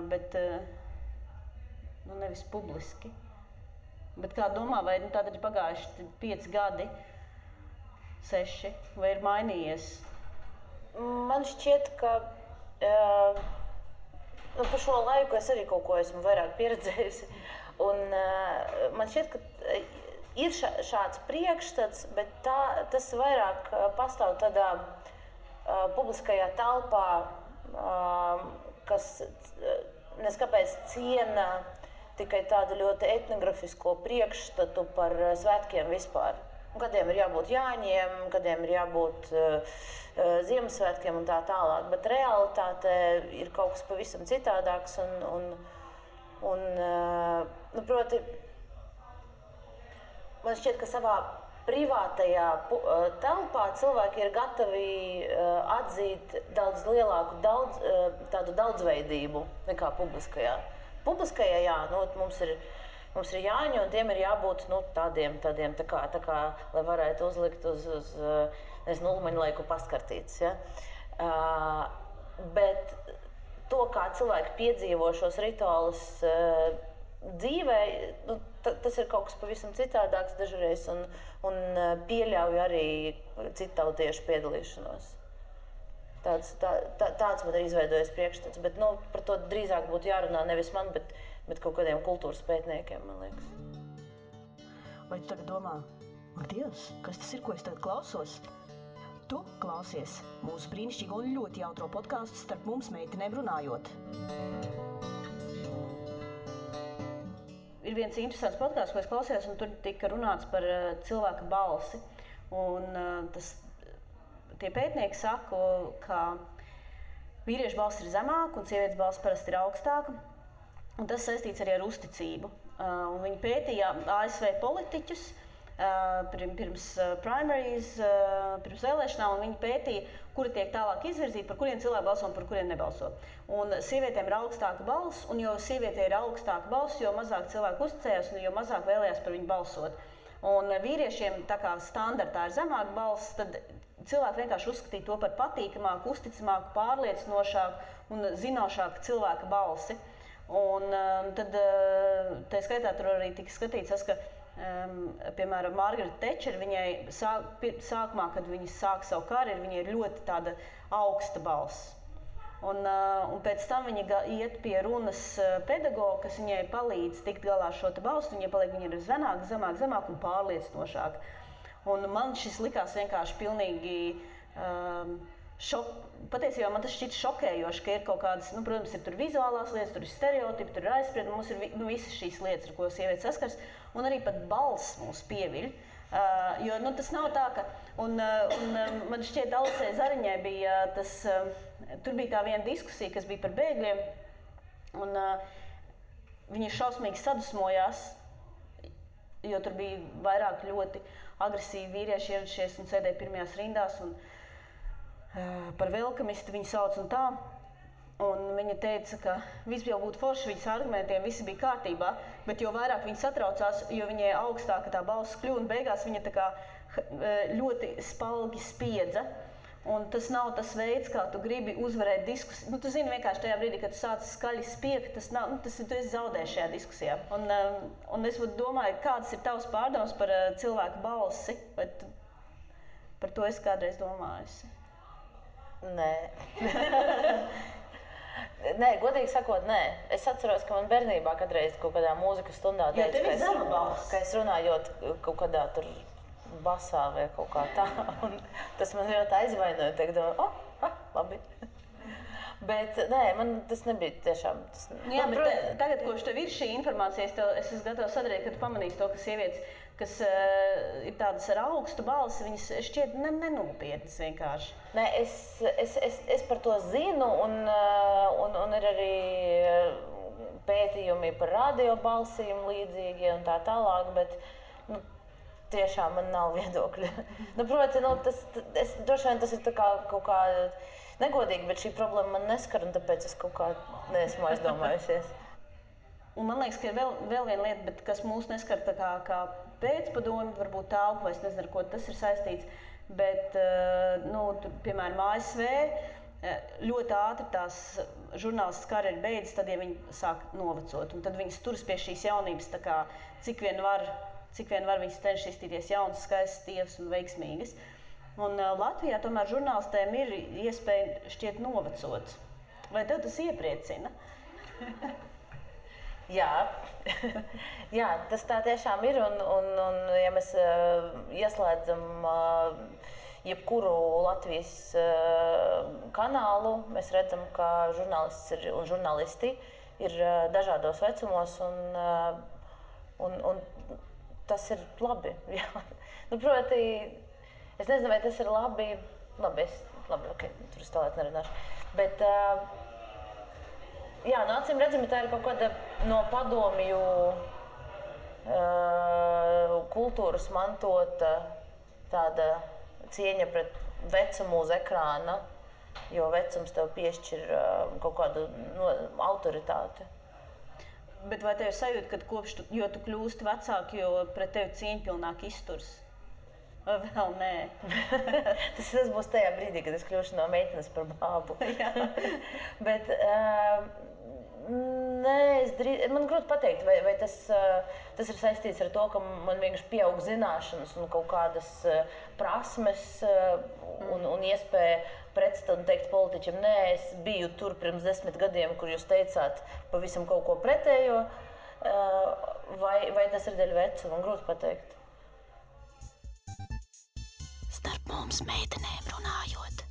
bet nevis publiski. Bet kā domā, vai tātad ir pagājuši 5 gadi, 6, vai ir mainījies? Man šķiet, ka par šo laiku es arī kaut ko esmu vairāk pieredzējusi. Un man šķiet, ka ir šāds priekšstats, bet tas vairāk pastāv tādā publiskajā telpā, kas neskapēc ciena tikai tādu ļoti etnografisko priekšstatu par svētkiem vispār. Kādiem ir jābūt Jāņiem, kādiem ir jābūt Ziemassvētkiem un tā tālāk. Bet realitāte ir kaut kas pavisam citādāks proti, man šķiet, ka savā privātajā telpā cilvēki ir gatavi atzīt daudz lielāku tādu daudzveidību nekā publiskajā. Publiskajā, jā, mums ir mums ir jāņu, un tiem ir jābūt tādiem tā kā, lai varētu uzlikt uz ulmaņlaiku paskartītes. Ja? Bet to, kā cilvēki piedzīvo šos rituālus dzīvē, tas ir kaut kas pavisam citādāks dažreiz un pieļauj arī citautiešu piedalīšanos. Tāds man ir izveidojies priekšstats, bet par to drīzāk būtu jārunā nevis man, bet kaut kādiem kultūras pētniekiem, man liekas. Vai tu tagad domā, ak Dievs, kas tas ir, ko es tagad klausos? Tu klausies mūsu brīnišķīgo un ļoti jautro podkāstu Starp mums meitenēm runājot. Ir viens interesants podkāsts, ko es klausījos, un tur tika runāts par cilvēka balsi. Un tie pētnieki saka, ka vīriešu balss ir zemāka un sievietes balss parasti ir augstāka. Un tas saistīts arī ar uzticību. Un viņi pētīja ASV politiķus pirms primaries, pirms vēlēšanām, un viņi pētīja, kuri tiek tālāk izvirzīti, par kuriem cilvēki balso un par kuriem nebalso. Un sievietēm ir augstāka balss, un jo sievietē ir augstāka balss, jo mazāk cilvēku uzticējās un jo mazāk vēlējās par viņu balsot. Un vīriešiem tā kā standartā ir zemāka balss, tad cilvēki vienkārši uzskatīja to par patīkamāku, uzticamāku, pārliecinošāku un zinošāku cilvēka balsi. Un tad tā skaitā tur arī tika skatīts, ka piemēram, Margaret Thatcher, viņai sākumā, kad viņa sāk savu karjeru, viņai ir ļoti tāda augsta balss. Un pēc tam viņa iet pie runas pedagoga, kas viņai palīdz tikt galā ar šo balstu, viņa ir zemāk un pārliecinošāk. Un man šis likās vienkārši pilnīgi patiesībā man tas šķiet šokējoši, ka ir kaut kādas, protams, ir tur vizuālās lietas, tur ir stereotipi, tur ir aizspriedumi, mums ir visas šīs lietas, ar ko sievietes saskars, un arī pat balss mūs pieviļ. Jo tas nav tā, ka, un man šķiet, Alisei Zariņai bija tur bija tā viena diskusija, kas bija par bēgļiem, un viņi šausmīgi sadusmojās, jo tur bija vairāk ļoti agresīvi vīrieši ieradušies un sēdēja pirmajās rindās, un par velkamistu viņu sauc un tā. Un viņa teica, ka viss jau būtu forši, viņas argumentiem visi bija kārtībā, bet jo vairāk viņa satraucās, jo viņai augstāka tā balss kļuva, un beigās viņa tā kā ļoti spalgi spiedza. Un tas nav tas veids, kā tu gribi uzvarēt diskusiju. Tu zini vienkārši tajā brīdī, kad tu sāc skaļi spiegt, tu esi zaudējis šajā diskusijā. Un es domāju, kādas ir tavas pārdomas par cilvēku balsi, vai par to es kādreiz domājusi? Nē. Nē, godīgi sakot, nē. Es atceros, ka man bernībā kādreiz kaut kādā mūzikas stundā teica, ka es runājot kaut kādā tur basā vai kaut kā tā. Un tas man ļoti aizvainoja. Domāju, labi. Bet nē, man tas nebija tiešām. Jā, bet tagad, kopš tev ir šī informācija, es esmu gatava sadarīt, kad pamanīsi to, ka sievietes, kas ir tādas ar augstu balsi, viņas šķiet nenopietnas vienkārši. Nē, es par to zinu, un ir arī pētījumi par radiobalsīm līdzīgi un tā tālāk, bet tiešām man nav viedokļa. Proti, droši vien tas ir tā kā kaut kā negodīgi, bet šī problēma man neskar, un tāpēc es kaut kā neesmu aizdomājusies. Un man liekas, ka ir vēl viena lieta, bet kas mūs neskar tā kā pēcpadomi, varbūt tālpu, es nezinu, ar ko tas ir saistīts, bet, tur, piemēram, ASV ļoti ātri tās žurnālistas karjeras beidzas, tad, ja viņi sāk novecot, un tad viņas turas pie šīs jaunības, tā kā cik vien var viņas cenšas izstīties jaunas, skaistas, tievas un veiksmīgas. Un Latvijā tomēr žurnālistēm ir iespēja šķiet novecot. Vai tev tas iepriecina? Jā. Jā, tas tā tiešām ir, un ja mēs ieslēdzam jebkuru Latvijas kanālu, mēs redzam, ka žurnālists un žurnālisti ir dažādos vecumos, un tas ir labi. Jā. Proti, es nezinu, vai tas ir labi. Labi, ok, tur es tālāk nerunāšu. Bet, jā, acīm redzami, tā ir kaut kāda no padomju kultūras mantota tāda cieņa pret vecumu uz ekrāna, jo vecums tev piešķir kaut kādu autoritāti. Bet vai tev ir sajūta, ka jo tu kļūsti vecāki, jo pret tevi cieņpilnāk izturs? Vai vēl nē? tas būs tajā brīdī, kad es kļūšu no meitenes par bābu. Bet nē, man grūti pateikt, vai tas ir saistīts ar to, ka man vienkārši pieaug zināšanas un kaut kādas prasmes un iespēja pretstāt un teikt politiķiem, nē, es biju tur pirms 10 gadiem, kur jūs teicāt pavisam kaut ko pretējo, vai tas ir dēļ veca, man grūti pateikt. Starp mums meitenēm runājot.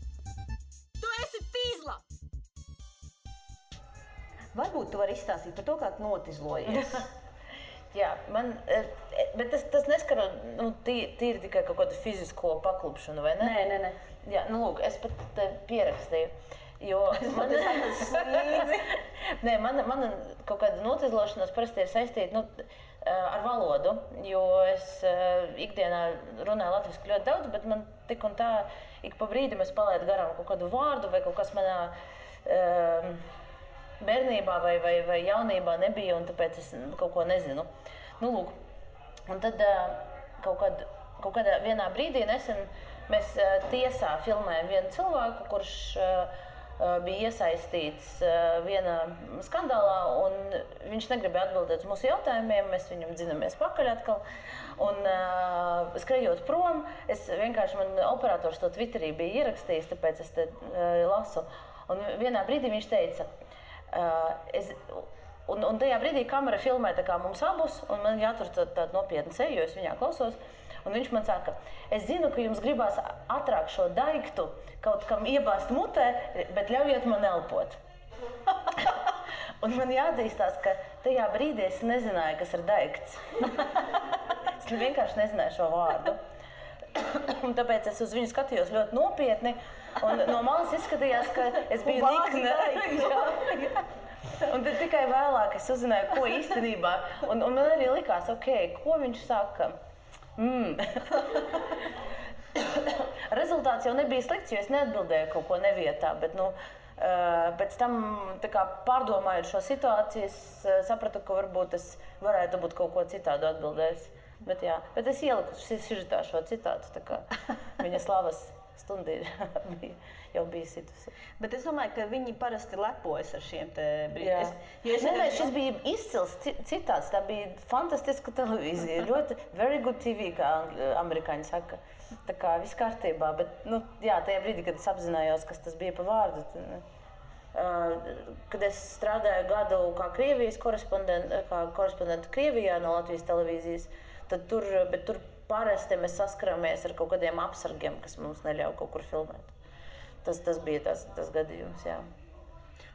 Tu esi fīzla! Varbūt tu vari izstāstīt par to, kā tu notizlojies. Jā, bet tas neskar tīri tikai kaut kādu fizisko paklupšanu, vai ne? Nē. Jā, lūk, es pat pierakstīju, jo mana kaut kāda notizlošanās parasti ir saistīta ar valodu, jo es ikdienā runāju latviski ļoti daudz, bet man tik un tā ik pa brīdim es palaidu garām kaut kādu vārdu vai kaut kas manā bērnībā vai jaunībā nebija, un tāpēc es kaut ko nezinu. Lūk, un tad kaut kādā vienā brīdī nesen mēs tiesā filmējam vienu cilvēku, kurš bija iesaistīts vienā skandālā, un viņš negribēja atbildēt uz mūsu jautājumiem, mēs viņam dzinamies pakaļ atkal. Un skrejot prom, man operators to Twitterī bija ierakstījis, tāpēc es te lasu. Un vienā brīdī viņš teica, un tajā brīdī kamera filmē tā kā mums abus, un man jātur tādu nopietnu seju, jo es viņā klausos. Un viņš man saka, es zinu, ka jums gribās ātrāk šo daiktu kaut kam iebāzt mutē, bet ļaujiet man elpot. Un man jāatzīstās, ka tajā brīdī es nezināju, kas ir daikts. Es vienkārši nezināju šo vārdu. Un tāpēc es uz viņu skatījos ļoti nopietni, un no malas izskatījās, ka es biju nikne. Un tad tikai vēlāk es uzzināju, ko īstenībā. Un man arī likās, ko viņš saka. Rezultāts jau nebija slikts, jo es neatbildēju kaut ko nevietā, bet pēc tam pārdomājot šo situāciju, es sapratu, ka varbūt es varētu būt kaut ko citādu atbildējis. Bet es ieliku sižetā šo citātu, tā kā viņa slavas stunda jau bija situsi. Bet es domāju, ka viņi parasti lepojas ar šiem te brīdiem. Šis bija izcils citāts, tā bija fantastiska televīzija, ļoti very good TV, kā amerikāņi saka. Tā kā viss kārtībā, bet tajā brīdī, kad es apzinājos, kas tas bija pa vārdu, kad es strādāju gadu kā Krievijas korespondenta Krievijā no Latvijas televīzijas, tad tur parasti mēs saskaramies ar kaut kādiem apsargiem, kas mums neļauj kaut kur filmēt. Tas bija tas gadījums, jā.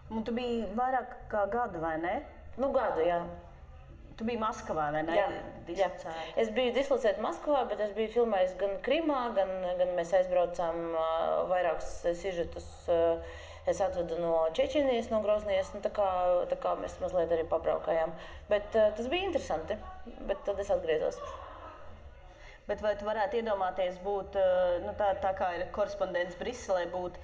Un tu biji vairāk kā gadu, vai ne? Gadu, jā. Tu biji Maskavā, vai ne? Jā. Es biju dislocēta Maskavā, bet es biju filmējis gan Krimā, gan mēs aizbraucām vairākus sižetus. Es atvedu no Čečenijas, no Groznijas, tā kā mēs mazliet arī pabraukājām. Bet tas bija interesanti, bet tad es atgriezos. Bet vai tu varētu iedomāties būt, tā kā ir korespondents Briselē, būt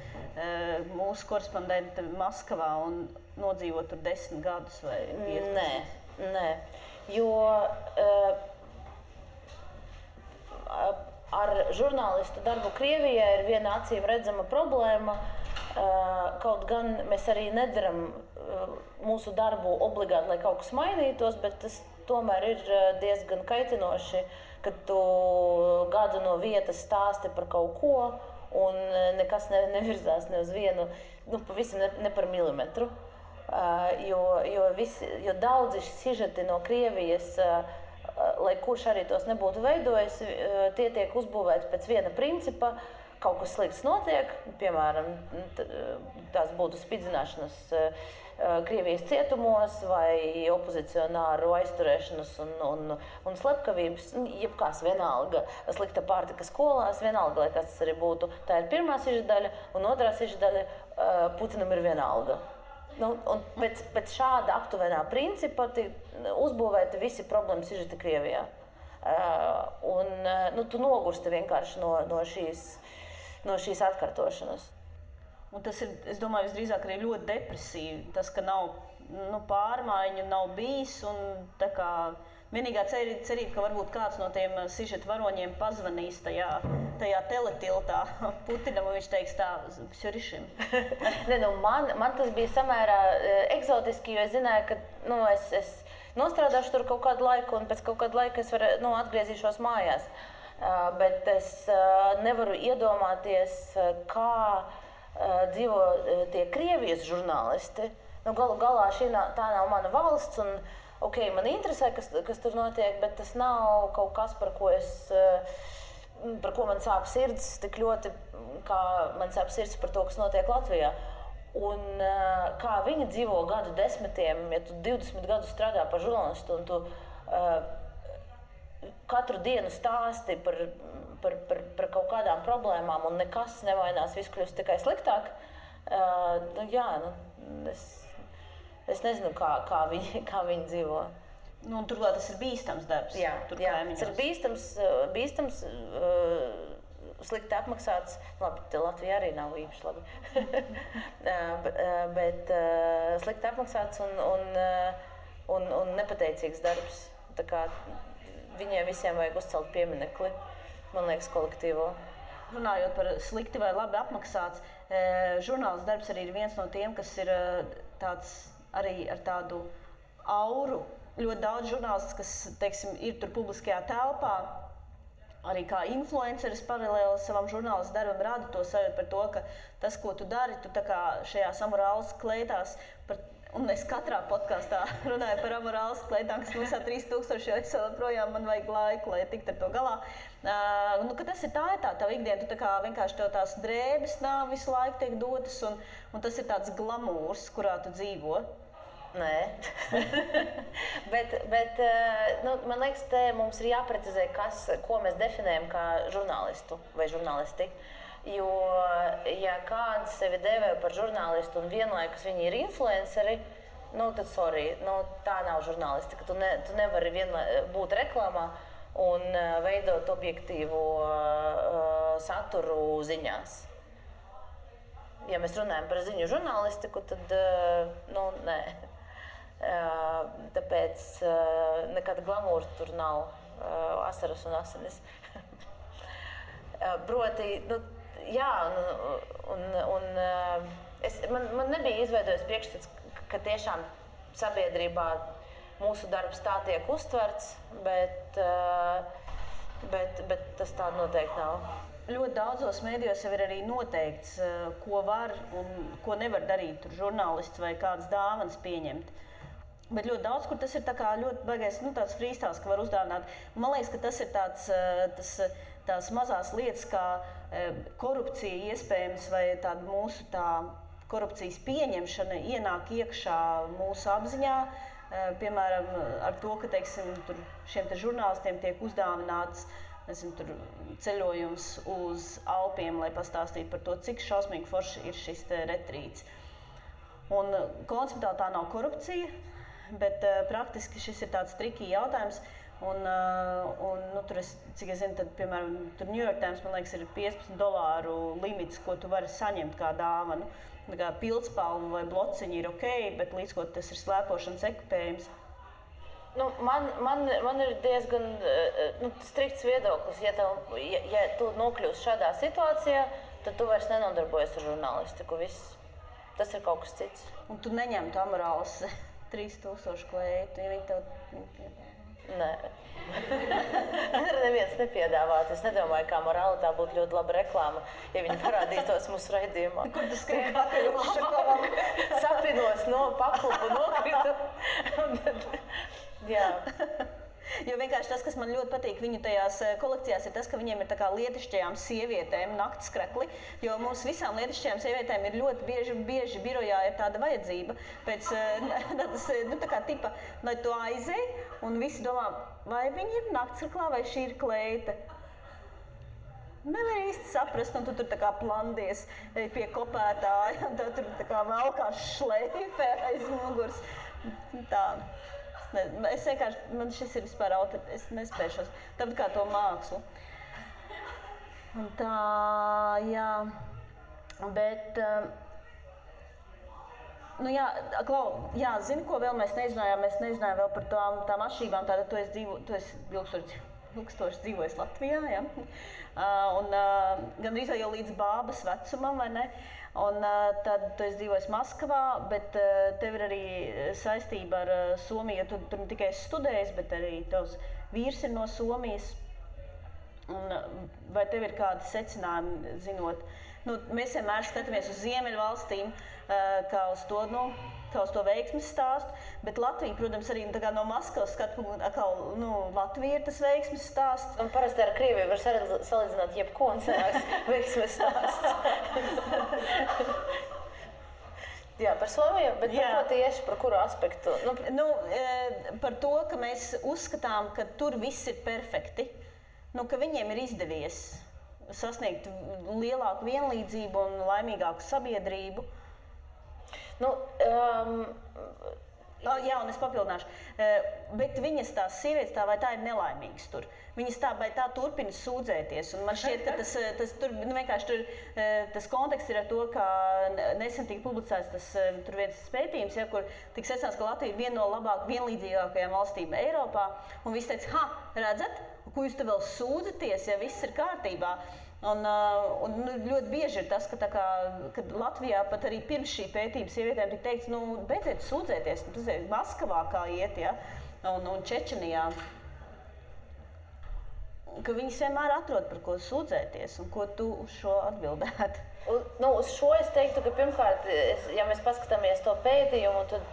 mūsu korespondente Maskavā un nodzīvot tur 10 gadus vai 15? Nē. Jo ar žurnālistu darbu Krievijā ir viena acīm redzama problēma. Kaut gan mēs arī nedaram mūsu darbu obligāti, lai kaut kas mainītos, bet tas tomēr ir diezgan kaitinoši, kad tu gadu no vietas stāsti par kaut ko un nekas nevirzās ne uz vienu, pavisam ne par milimetru. Jo daudzi sižeti no Krievijas, lai kurš arī tos nebūtu veidojis, tie tiek uzbūvēti pēc viena principa. Kaut kas slikts notiek, piemēram, tās būtu spidzināšanas Krievijas cietumos vai opozicionāru aizturēšanas un slepkavības, jebkās vienalga, slikta pārtika skolās, vienalga, lai kas tas arī būtu. Tā ir pirmā siždaļa, un otrā siždaļa Putinam ir vienalga. Un pēc šāda aptuvenā principa uzbūvēti visi problēmu sižeti Krievijā. Tu nogursti vienkārši no šīs atkārtošanas. Un tas ir, es domāju, visdrīzāk arī ļoti depresīvi. Tas, ka nav pārmaiņu nav bijis. Un, tā kā, vienīgā cerība, ka varbūt kāds no tiem sižeta varoņiem pazvanīs tajā teletiltā Putinam, un viņš teiks tā, Sjurišim. Man tas bija samērā eksotiski, jo es zināju, ka es nostrādāšu tur kaut kādu laiku, un pēc kaut kāda laika es atgriezīšos mājās. Bet es nevaru iedomāties, kā dzīvo tie Krievijas žurnālisti. Galu galā tā nav mana valsts, un man interesē, kas tur notiek, bet tas nav kaut kas, par ko man sāp sirds tik ļoti, kā man sāp sirds par to, kas notiek Latvijā. Un kā viņi dzīvo gadu desmitiem, ja tu 20 gadus strādā par žurnālistu, un tu katru dienu stāsti par kaut kādām problēmām, un nekas nevainās, viss kļūst tikai sliktāk. Es nezinu, kā viņi dzīvo. Turklāt tas ir bīstams darbs. Jā, tas ir bīstams, slikti apmaksāts. Labi, Latvija arī nav īpaši labi. bet slikti apmaksāts un nepateicīgs darbs. Tā kā viņiem visiem vajag uzcelt pieminekli, man liekas, kolektīvo. Runājot par slikti vai labi apmaksāts, žurnālists darbs arī ir viens no tiem, kas ir tāds arī ar tādu auru. Ļoti daudz žurnālists, kas, teiksim, ir tur publiskajā telpā, arī kā influenceris paralēli savam žurnālistu darbam rada to sajūtu par to, ka tas, ko tu dari, tu tā kā šajās amorālas kleitās, un es katrā podkastā runāju par amorālas kleitām, kas maksā 3000, jo es joprojām man vajag laiku, lai tiktu ar to galā. Ka tas ir tā tava ikdiena, tu tā kā vienkārši tev tās drēbes nav visu laiku tiek dotas, un tas ir tāds glamūrs, kurā tu dzīvo. Nē, bet man liekas, te mums ir jāprecizē, ko mēs definējam kā žurnālistu vai žurnālisti. Jo, ja kāds sevi dēvē par žurnālistu un vienlaikus viņi ir influenceri, tad sorry, tā nav žurnālisti, ka tu nevari būt reklāmā un veidot objektīvu saturu ziņās. Ja mēs runājam par ziņu žurnālistiku, tad nē. Tāpēc nekāda glamūra tur nav, asaras un asinis. Proti, man nebija izveidojis priekšstats, ka tiešām sabiedrībā mūsu darbs tā tiek uztverts, bet tas tā noteikti nav. Ļoti daudzos mēdījos jau ir arī noteikts, ko var un ko nevar darīt tur žurnālists vai kādas dāvanas pieņemt. Bet ļoti daudz, kur tas ir tā kā ļoti baigais, tāds freestyles, ka var uzdāvināt. Man liekas, ka tas ir tās mazās lietas, kā korupcija iespējams vai tāda mūsu korupcijas pieņemšana ienāk iekšā mūsu apziņā. Piemēram, ar to, ka, teiksim, šiem žurnālistiem tiek uzdāvināts ceļojums uz Alpiem, lai pastāstītu par to, cik šausmīgi forši ir šis retrīts. Un konceptuāli tā nav korupcija, bet praktiski šis ir tāds trikī jautājums. Tur cik es zinu, tad, piemēram, tur New York Times, man liekas, ir $15 limits, ko tu vari saņemt kā dāvanu. Kā pildspalva vai blociņi ir ok, bet līdz ko tas ir slēpošanas ekipējums. Man ir diezgan strikts viedoklis. Ja tu nokļūsi šādā situācijā, tad tu vairs nenodarbojies ar žurnālistiku. Tas ir kaut kas cits. Un tu neņemtu amorālas 3000 kleitu, ja viņi tev... Nē. Neviens nepiedāvāt. Es nedomāju, kā morāli tā būtu ļoti laba reklāma, ja viņi parādītos mūsu raidījumā. Kur tu skrien pakaļ uz šokolam? Sapinos no paklupu nokritu. Jā. Jo vienkārši tas, kas man ļoti patīk viņu tajās kolekcijās, ir tas, ka viņiem ir tā kā lietišķajām sievietēm naktskrekli, jo mums visām lietišķajām sievietēm ir ļoti bieži birojā ir tāda vajadzība pēc tā kā tipa, lai tu aizej, un visi domā, vai viņi ir naktskreklā, vai šī ir kleita. Nevar īsti saprast, un tu tur tā kā plandies pie kopētāja, un tev tur tā kā velkās šleife aiz muguras. Tā. Es vienkārši, man šis ir vispār es nespēšos, tāpat kā to mākslu. Un tā, jā, bet Zini, ko vēl mēs nezinājām? Mēs nezinājām vēl par tām atšķirībām. Tātad tu esi ilgstoši dzīvojis Latvijā, ja? Un gandrīz jau līdz bābas vecumam, vai ne? Un tad tu esi dzīvojis Maskavā, bet tev ir arī saistība ar Somiju, jo tu tur ne tikai studējis, bet arī tavs vīrs ir no Somijas. Un vai tev ir kādi secinājumi, zinot? Mēs vienmēr skatāmies uz Ziemeļvalstīm, kā uz to veiksmes stāstu, bet Latvija, protams, arī no Maskavas skatu punktu, Latvija ir tas veiksmes stāsts. Un parasti ar Krieviju var salīdzināt jebko un sanāks veiksmes stāsts. Jā, par Somiju, bet par ko tieši, par kuru aspektu? Par to, ka mēs uzskatām, ka tur viss ir perfekti, ka viņiem ir izdevies sasniegt lielāku vienlīdzību un laimīgāku sabiedrību. Un es papildināšu. Bet viņas tās sievietes vai tā ir nelaimīgas tur. Viņas vai tā turpina sūdzēties. Un man šķiet, ka tas konteksts ir ar to, ka nesen tika publicēts tur viens pētījums, kur tika secināts, ka Latvija ir viena no labāk vienlīdzīgākajām valstīm Eiropā. Un visi teica, redzat? Ko jūs te vēl sūdzaties, ja viss ir kārtībā? Un ļoti bieži ir tas, ka Latvijā pat arī pirms šī pētījuma sievietēm tika teikts, beidziet sūdzēties, tas ir Maskavā kā iet, ja? un Čečenijā. Ka viņas vienmēr atrod par ko sūdzēties, un ko tu uz šo atbildētu? Uz šo es teiktu, ka pirmkārt, ja mēs paskatāmies to pētījumu, tad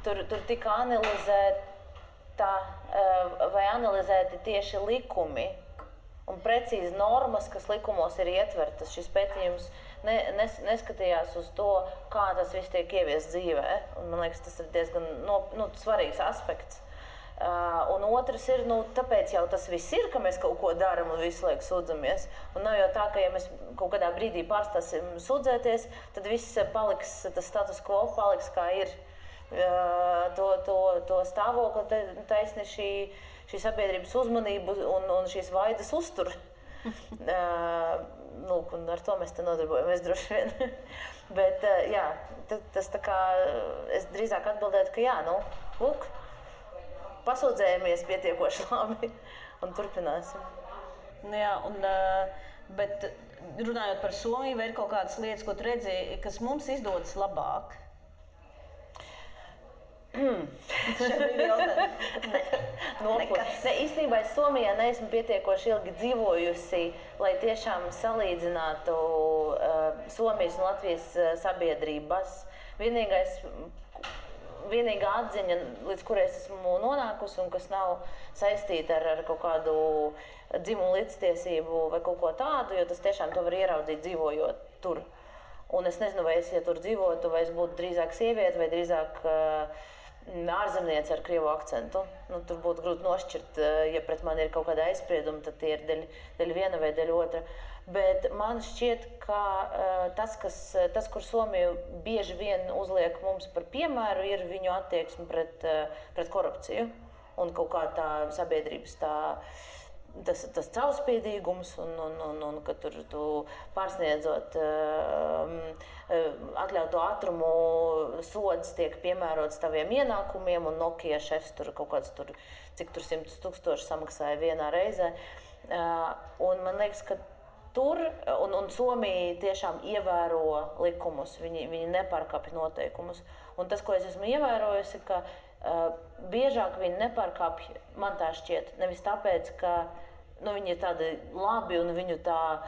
tur tika analizēti tieši likumi un precīzi normas, kas likumos ir ietvertas. Šis pētījums neskatījās uz to, kā tas viss tiek ieviests dzīvē. Un, man liekas, tas ir diezgan svarīgs aspekts. Un otrs ir, tāpēc jau tas viss ir, ka mēs kaut ko darām un visu laiku sūdzamies. Un nav jau tā, ka ja mēs kaut kādā brīdī pārstāsim sūdzēties, tad viss paliks, tas status quo paliks kā ir. To stāvokli taisni šī sabiedrības uzmanību un šīs vaidas uztur. Un ar to mēs te nodarbojamies droši vien. Bet tas tā kā, es drīzāk atbildētu, ka pasūdzējamies pietiekoši labi un turpināsim. Bet runājot par Somiju, vai ir kaut kādas lietas, ko tu redzēji, kas mums izdodas labāk? Īstenībā es Somijā neesmu pietiekoši ilgi dzīvojusi, lai tiešām salīdzinātu Somijas un Latvijas sabiedrības. Vienīgā atziņa, līdz kurai es esmu nonākusi un kas nav saistīta ar kaut kādu dzimumu līdztiesību vai kaut ko tādu, jo tas tiešām to var ieraudzīt dzīvojot tur. Un es nezinu, vai es, ja tur dzīvotu, vai es būtu drīzāk sieviete vai drīzāk ārzemniece ar krievu akcentu. Tur būtu grūti nošķirt, ja pret mani ir kaut kāda aizsprieduma, tad tie ir daļa viena vai daļa otra. Bet man šķiet, ka tas, kur Somija bieži vien uzliek mums par piemēru, ir viņu attieksme pret korupciju un kaut kā tā sabiedrības tas caurspīdīgums un ka tur tu pārsniedzot atļautu ātrumu sods tiek piemērots taviem ienākumiem un Nokia šefs tur kaut kāds cik tur 100,000 samaksāja vienā reizē. Un man liekas, ka tur un Somija tiešām ievēro likumus, viņi nepārkāpj noteikumus. Un tas, ko es esmu ievērojusi, ka biežāk viņi nepārkāpj, man tā šķiet, nevis tāpēc, ka viņi ir tādi labi un viņu tā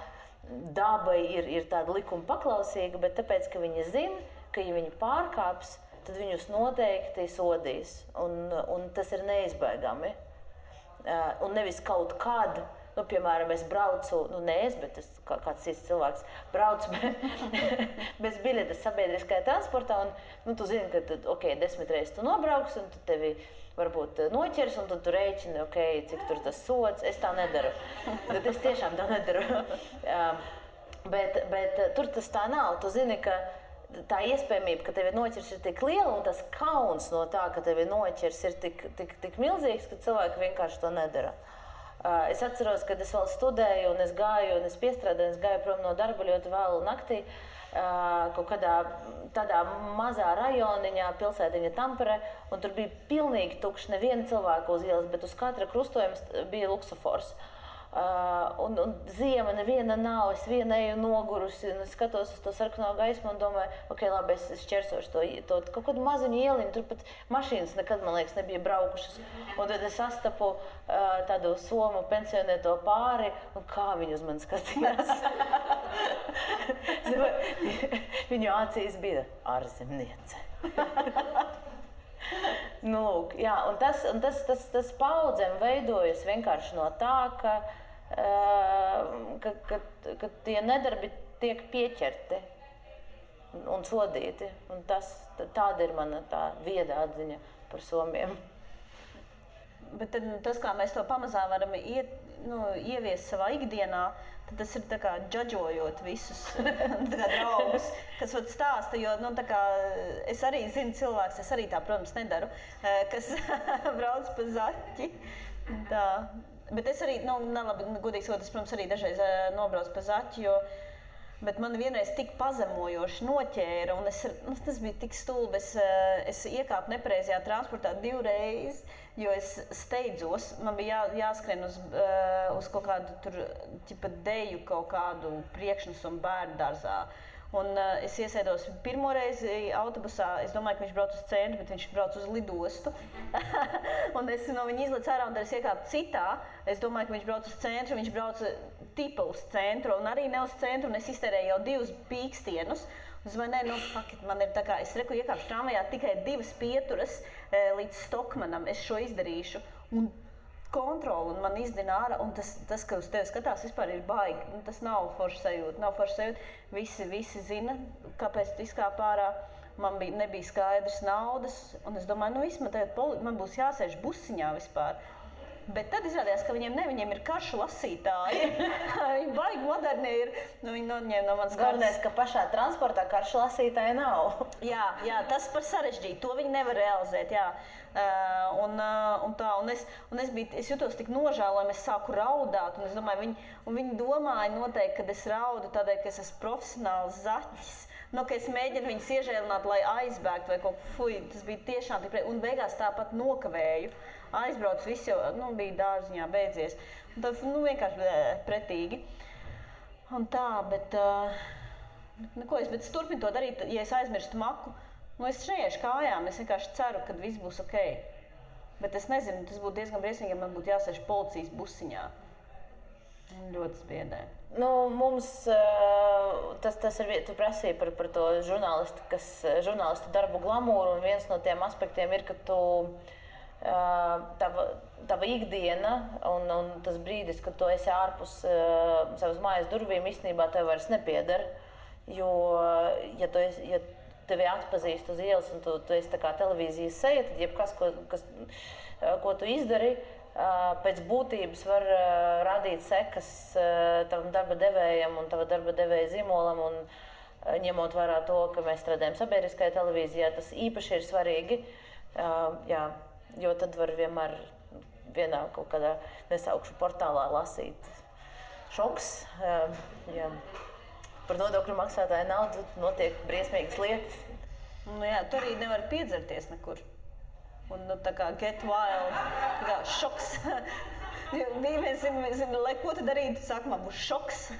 daba ir tāda likuma paklausīga, bet tāpēc, ka viņi zina, ka ja viņi pārkāps, tad viņus noteikti sodīs. Un tas ir neizbēgami. Un nevis kaut kad, piemēram, es braucu, bet kāds cits cilvēks brauc bez biļetes sabiedriskajā transportā, un tu zini, ka 10 reizes tu nobrauks, un tu tevi varbūt noķers, un tad tu rēķini, cik tur tas sods. Es tā nedaru. Bet es tiešām tā nedaru. Bet tur tas tā nav. Tu zini, ka tā iespējamība, ka tevi noķers, ir tik liela, un tas kauns no tā, ka tevi noķers, ir tik milzīgs, ka cilvēki vienkārši to nedara. Es atceros, kad es vēl studēju, un es gāju, un es piestrādāju, es gāju prom no darba ļoti vēlu naktī. Kaut kādā tādā mazā rajoniņā, pilsētiņa Tampere, un tur bija pilnīgi tukšs, neviena cilvēka uz ielas, bet uz katra krustojuma bija luksofors. Un ziema neviena nav, es viena eju nogurusi, un es skatos uz to sarkano gaismu un domāju, ok, labi, es šķersošu to kaut kādu maziņu ieliņu, tur pat mašīnas nekad, man liekas, nebija braukušas. Un tad es sastapu tādu somu pensionēto pāri, un kā viņi uz mani skatījās. Viņu acīs bija ārzemniece. Nu, lūk, jā, un tas paudzēm veidojas vienkārši no tā, ka tie nedarbi tiek pieķerti un sodīti. Un tāda ir mana tā vieda atziņa par somiem. Bet tad, tas, kā mēs to pamazām varam ieviest savā ikdienā, tad tas ir tā kā džadžojot visus draugus, kas stāsta, jo es arī zinu cilvēks, es arī tā, protams, nedaru, kas brauc pa zaķi. Tā. Bet es arī, godīgi sakot, es, protams, arī dažreiz nobraucu pa zaķi, bet man vienreiz tik pazemojoši noķēra, un tas bija tik stulbi, es iekāpu nepareizajā transportā 2 reizes, jo es steidzos, man bija jāskrien uz kaut kādu tur, deju kaut kādu priekšnesumu bērnu dārzā. Un es iesēdos pirmo reizi autobusā, es domāju, ka viņš brauc uz centru, bet viņš brauc uz lidostu. Un es no viņa izlecu ārā, un tad es iekāpu citā. Es domāju, ka viņš brauc uz centru, viņš brauc tipa uz centru, un arī ne uz centru, un es iztērēju jau 2 pīkstienus. Un es domāju, man ir tā kā, es iekāpšu tramvajā tikai 2 pieturas līdz Stokmanam, es šo izdarīšu. Un kontroli, un man izdina ārā, un tas, ka uz tevi skatās, vispār ir baigi. Tas nav forša sajūta. Visi zina, kāpēc tu izkāp ārā. Man nebija skaidrs naudas, un es domāju, man būs jāsēž busiņā vispār. Bet tad izrādījās, ka viņiem ir karšu lasītāji. Viņi baigi moderni ir. Viņi noņēma no manas kartes. Galvenais, ka pašā transportā karšu lasītāji nav. Jā, tas par sarežģītu. To viņi nevar realizēt. Jā. Es jutos tik nožēlojami, es sāku raudāt. Un es domāju, viņi domāja noteikti, ka es raudu tādēļ, ka es esmu profesionāls zaķis. Ka es mēģinu viņus iežēlināt, lai aizbēgtu vai kaut ko. Tas bija tiešām tik un beigās tāpat nokavēju. Aizbraucu, viss jau bija dārziņā beidzies. Tad vienkārši pretīgi. Un tā, bet es turpinu to darīt, ja es aizmirstu maku. Es neiešu kājām, es vienkārši ceru, ka viss būs ok. Bet es nezinu, tas būtu diezgan briesmīgi, ja man būtu jāsēž policijas busiņā. Ļoti spiedē. Mums tas ir, tu prasīji par to žurnālistu darbu glamūru, un viens no tiem aspektiem ir, ka tava ikdiena un tas brīdis, kad tu esi ārpus savas mājas durvīm, īstenībā tev vairs nepieder. Jo, ja tevi atpazīst uz ielas un tu esi tā kā televīzijas seja, tad jebkas, ko tu izdari, pēc būtības var radīt sekas tavam darba devējam un tava darba devēja zīmolam, un ņemot vērā to, ka mēs strādājam sabiedriskajā televīzijā, tas īpaši ir svarīgi, jo tad var vienmēr vienā kaut kādā nesaukšu portālā lasīt šoks. Par nodokļu maksātāju naudu notiek briesmīgas lietas. Tu arī nevari piedzerties nekur. Un tā kā get wild, tā kā šoks. Zina, lai ko tu darītu, sākumā būs šoks.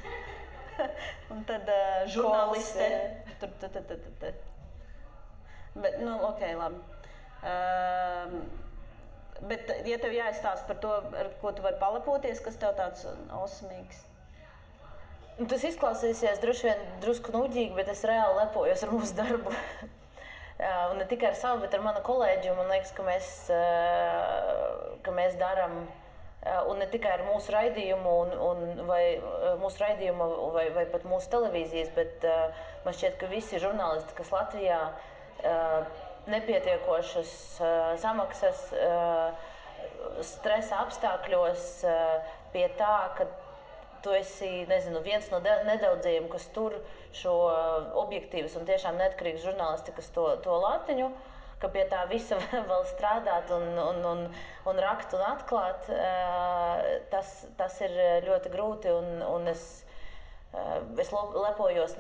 Un tad žurnāliste. Bet, ok, labi. Bet, ja tev jāizstāsta par to, ar ko tu vari palepoties, kas tev tāds osmīgs? Tas izklausīsies droši vien drusku nuģīgi, bet es reāli lepojos ar mūsu darbu. Un ne tikai ar savu, bet ar manu kolēģi. Man liekas, ka mēs darām, un ne tikai ar mūsu raidījumu, vai pat mūsu televīzijas, bet man šķiet, ka visi žurnālisti, kas Latvijā nepietiekošas samaksas, stresa apstākļos pie tā, ka tu esi, viens no nedaudzajiem, kas tur šo objektīvas un tiešām neatkarīgas žurnālistikas to latiņu. ka pie tā visa vēl strādāt un rakt un atklāt, tas ir ļoti grūti, un es lepojos,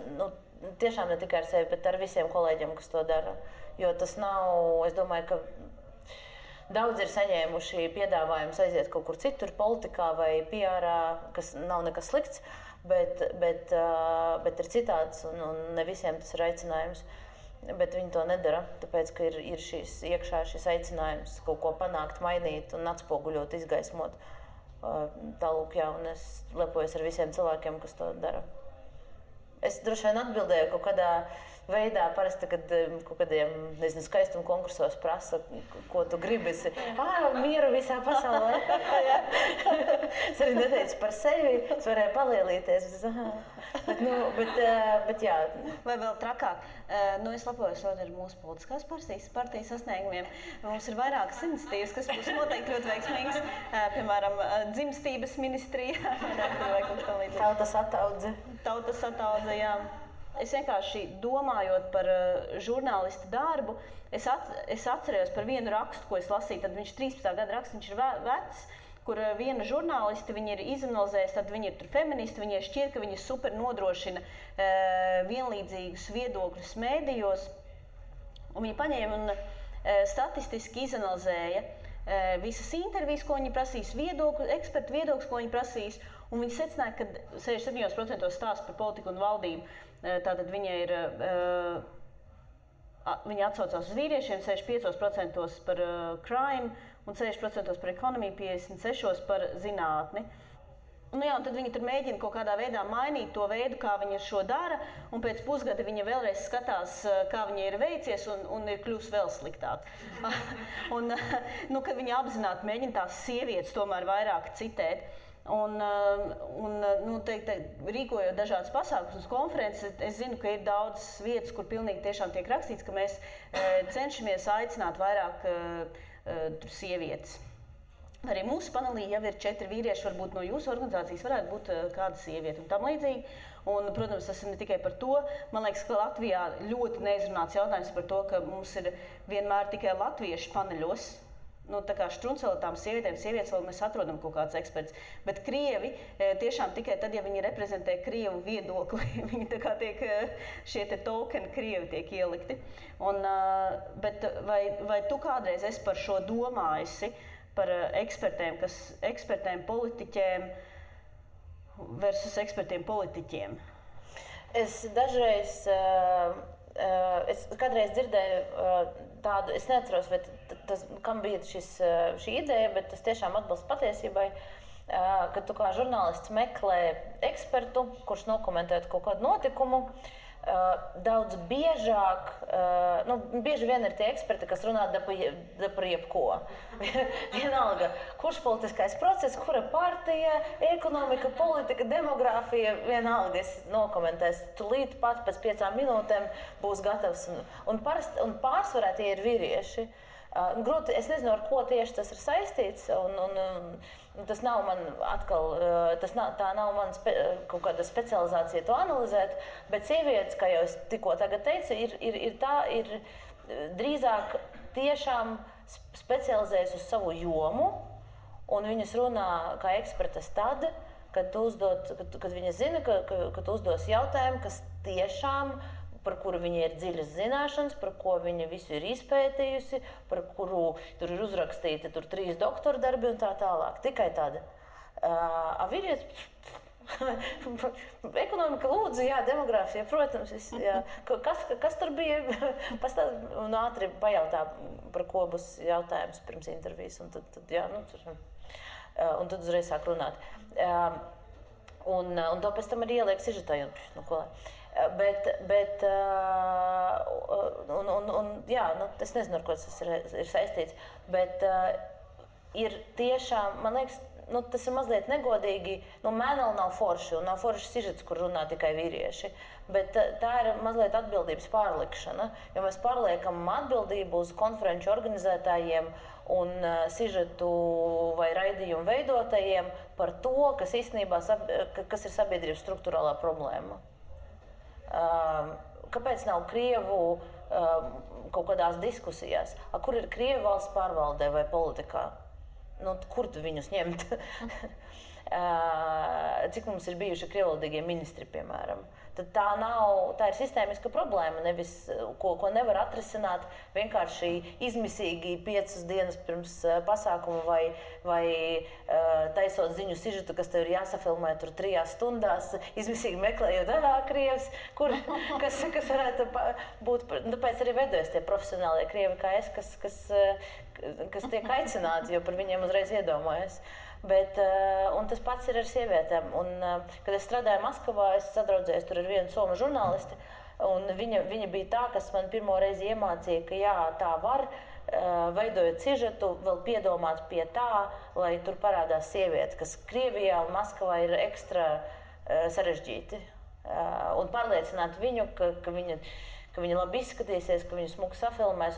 tiešām ne tikai ar sevi, bet ar visiem kolēģiem, kas to dara. Jo tas nav, es domāju, ka daudz ir saņēmuši piedāvājumus aiziet kaut kur citur, politikā vai PR-ā, kas nav nekas slikts, bet ir citāds, un ne visiem tas ir aicinājums. Bet viņi to nedara, tāpēc, ka ir iekšā šis aicinājums kaut ko panākt, mainīt un atspoguļot, izgaismot. Tālūk, jā, un es lepojos ar visiem cilvēkiem, kas to dara. Es droši vien atbildēju kaut kādā veidā, parasti, kad kaut kādiem, nezinu, skaistuma konkursos prasa, ko tu gribi. Mieru visā pasaulē. Es arī neteicu par sevi, es varēju palielīties. Bet jā. Vai vēl trakāk? Es lepojos ar mūsu politiskās partijas sasniegumiem. Mums ir vairākas iniciatīvas, kas būs noteikti ļoti veiksmīgas. Piemēram, dzimstības ministrija. Tautas ataudze, jā. Es vienkārši domājot par žurnālista darbu, es atcerējos par vienu rakstu, ko es lasīju, tad viņš 13. gada raksts, viņš ir vecs, kur viena žurnāliste, viņa ir izanalizējusi, tad viņa ir tur feministi, viņai šķiet, ka viņa super nodrošina vienlīdzīgus viedokļus mēdījos, un viņa paņēma un statistiski izanalizēja visas intervijas, ko viņi prasīs, ekspertu viedokļus, ko viņi prasīs, un viņi secināja, ka 67% stāsta par politiku un valdību. Tātad viņi atsaucās uz vīriešiem, 65% par crime un 60% par ekonomiju, 56% par zinātni. Un tad viņi tur mēģina kaut kādā veidā mainīt to veidu, kā viņi šo dara, un pēc pusgada viņa vēlreiz skatās, kā viņa ir veicies, un ir kļūst vēl sliktāk. Kad viņi apzināti mēģina tās sievietes tomēr vairāk citēt. Rīkojot dažādas pasākumus un konferences, es zinu, ka ir daudzas vietas, kur pilnīgi tiešām tiek rakstīts, ka mēs cenšamies aicināt vairāk sievietes. Arī mūsu panelī jau ir 4 vīrieši, varbūt no jūsu organizācijas varētu būt kāda sieviete un tam līdzīgi. Un, protams, tas ir ne tikai par to. Man liekas, ka Latvijā ļoti neizrunāts jautājums par to, ka mums ir vienmēr tikai latvieši paneļos. Tā kā štruncēlotām sievietes vēl mēs atrodam kaut kāds eksperts. Bet krievi tiešām tikai tad, ja viņi reprezentē krievu viedokli, viņi tā kā tiek, šie te tokeni krievi tiek ielikti. Bet vai tu kādreiz esi par šo domājusi, par ekspertiem politiķiem versus ekspertiem politiķiem? Es dažreiz, es kādreiz dzirdēju tādu, es neatceros, vai kam bija šī ideja, bet tas tiešām atbilst patiesībai, ka tu kā žurnālists meklē ekspertu, kurš nokomentētu kaut kādu notikumu, daudz biežāk, bieži vien ir tie eksperti, kas runā par jebko. Vienalga, kurš politiskais process, kura partija, ekonomika, politika, demogrāfija, vienalga es nokomentēs. Tūlīt pat pēc 5 minūtēm būs gatavs. Un pārsvarā tie ir vīrieši. Grūti, es nezinu, ar ko tieši tas ir saistīts, un tas nav man atkal, tā nav man kaut kāda specializācija to analizēt, bet sievietes, kā jau es tikko tagad teicu, ir drīzāk tiešām specializējas uz savu jomu, un viņas runā kā ekspertas tad, kad viņas zina, ka tu uzdos jautājumu, kas tiešām par kuru viņa ir dziļas zināšanas, par ko viņa visu ir izpētījusi, par kuru tur ir uzrakstīti 3 doktora darbi un tā tālāk. Tikai tāda. Vīrietis, ekonomika lūdzu, jā, demogrāfija, protams. Jā. Kas tur bija? Un ātri pajautā, par ko būs jautājums pirms intervijas. Un tad uzreiz sāk runāt. Un to pēc tam arī ieliek sižetā. Es nezinu, ar ko tas ir saistīts, bet ir tiešām, man liekas, tas ir mazliet negodīgi, mēneli nav forši, un nav forši sižets, kur runā tikai vīrieši, bet tā ir mazliet atbildības pārlikšana, jo mēs pārliekam atbildību uz konferenču organizētājiem un sižetu vai raidījumu veidotājiem par to, kas īstenībā, kas ir sabiedrības struktūrālā problēma. Kāpēc nav krievu kaut kādās diskusijās. Kur ir Krievu valsts pārvaldē vai politikā? Kur tu viņus ņemt? Cik mums ir bijuši krievvalodīgie ministri, piemēram? Tad tā ir sistēmiska problēma, nevis, ko nevar atrisināt vienkārši izmisīgi 5 dienas pirms pasākuma vai taisot ziņu sižetu, kas tev ir jāsafilmē tur 3 stundās, izmisīgi meklējot, Krievs, kas varētu būt. Tāpēc arī veidojas tie profesionālie krievi kā es, kas tiek aicināti, jo par viņiem uzreiz iedomājas. Un tas pats ir ar sievietēm. Kad es strādāju Maskavā, es sadraudzējos tur ar vienu somu žurnālisti, un viņa bija tā, kas man pirmo reizi iemācīja, ka jā, tā var, veidojot sižetu, vēl piedomāt pie tā, lai tur parādās sieviete, kas Krievijā un Maskavā ir ekstra sarežģīti. Un pārliecināt viņu, ka viņa labi izskatīsies, ka viņu smuki safilmēs.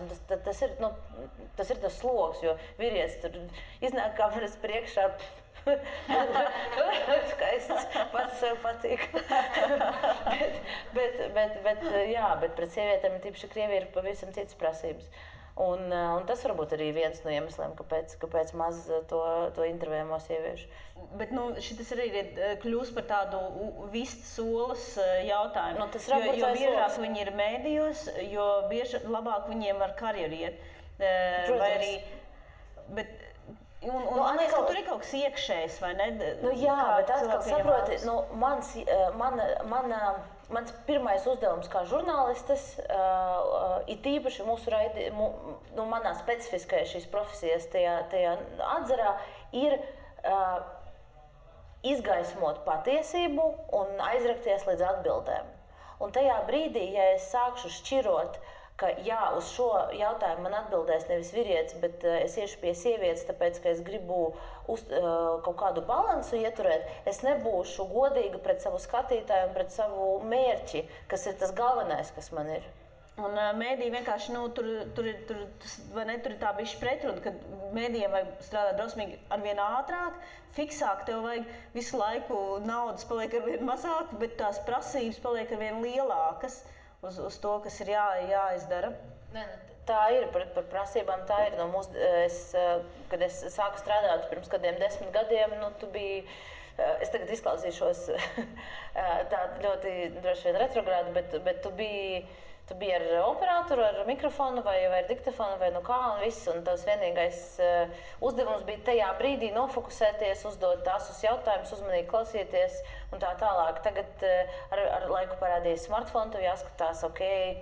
Tas ir tas sloks, jo vīrietis tur iznāk kameras priekšā. Skaists, pats sev patīk. bet pret sievietēm, tīpaši Krievija, ir pavisam citas prasības. Un tas varbūt arī viens no iemesliem, kāpēc maz to intervējamo sieviešu. Bet šitas arī kļūst par tādu vistas olas jautājumu. Jo biežāk viņi ir mēdījos, jo labāk viņiem var karjeru iet. Vai arī, man liekas, ka tur ir kaut kas iekšējs, vai ne? Jā, bet atkal saproti, mans pirmais uzdevums kā žurnālistes, ir tīpaši manā specifiskajā šīs profesijas tajā atzarā, ir izgaismot patiesību un aizrakties līdz atbildēm. Un tajā brīdī, ja es sākšu šķirot, ka jā, uz šo jautājumu man atbildēs nevis vīrietis, bet es iešu pie sievietes, tāpēc, ka es gribu kaut kādu balansu ieturēt, es nebūšu godīga pret savu skatītāju un pret savu mērķi, kas ir tas galvenais, kas man ir. Un mēdī vienkārši, tur ir tā bišķi pretruna, ka mēdījiem vajag strādāt drausmīgi arvien ātrāk, fiksāk, tev vajag visu laiku naudas paliek arvien mazāk, bet tās prasības paliek arvien lielākas uz to, kas ir jāizdara. Tā ir, par prasībām tā ir. Kad es sāku strādāt pirms kādiem 10 gadiem, tu biji, es tagad izklausīšos tā ļoti droši vien retrogrādi, bet tu biji ar operatoru, ar mikrofonu vai ar diktafonu vai kā un viss. Un tavs vienīgais uzdevums bija tajā brīdī nofokusēties, uzdot tāsus jautājumus, uzmanīgi klausīties un tā tālāk. Tagad ar laiku parādīja smartphone, tev jāskatās,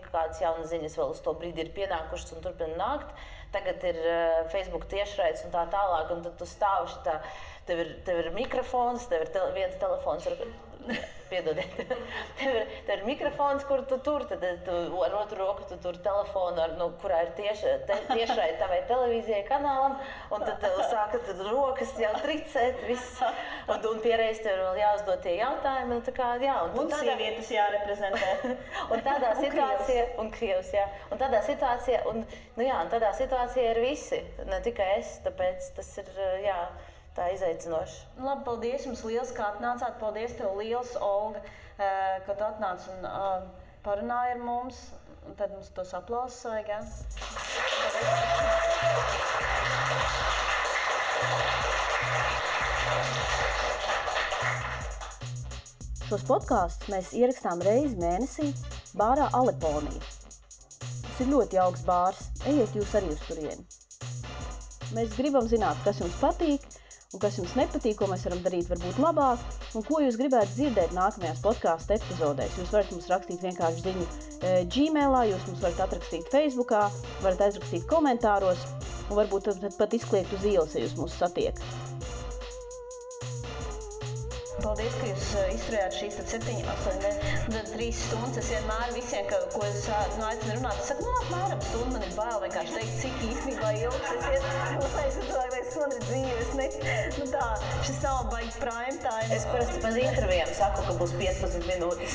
kādas jaunas ziņas vēl uz to brīdi ir pienākušas un turpina nākt. Tagad ir Facebook tiešraides un tā tālāk, un tad tu stāvi šitā, tev ir mikrofons, tev ir viens telefons, piedodiet, tev ir mikrofons, kur tu tur, tad tu ar otru roku tu tur telefonu, kurā ir tiešraide tavai televīzijai kanālam, un tad tev sāka rokas jau tricēt, viss, un piereiz tev vēl jāuzdod tie jautājumi, un sievietes jāreprezentē. Un tādā situācijā, un Krievs, jā, un tādā situācijā ir visi, ne tikai es, tāpēc tas ir, tā izaicinoši. Labi, paldies jums liels, kā atnācāt. Paldies tev liels, Olga, ka tu atnāc un parunāji ar mums. Un tad mums tos aplausus vajag, jā? Šos podkāstus mēs ierakstām reizi mēnesī bārā Aleponija. Tas ir ļoti jauks bārs. Ejiet jūs arī uz turieni. Mēs gribam zināt, kas jums patīk, un kas jums nepatīk, ko mēs varam darīt varbūt labāk, un ko jūs gribētu dzirdēt nākamajās podcastu epizodēs. Jūs varat mums rakstīt vienkārši ziņu Gmailā, jūs mums varat atrakstīt Facebookā, varat aizrakstīt komentāros, un varbūt pat izkliegt uz ielas, ja jūs mūs satiekat. Paldies, ka jūs izturējāt šīs 7, 8, 3 stundas. Es vienmēr visiem, ko es aicinu runāt, es saku, apmēram stundu, man ir bail vienkārši teikt, cik īstenībā ilgs es iet. Es domāju, man ir dzīves. Šis nav baigi prime time. Es parasti pēc intervijām saku, ka būs 15 minūtes.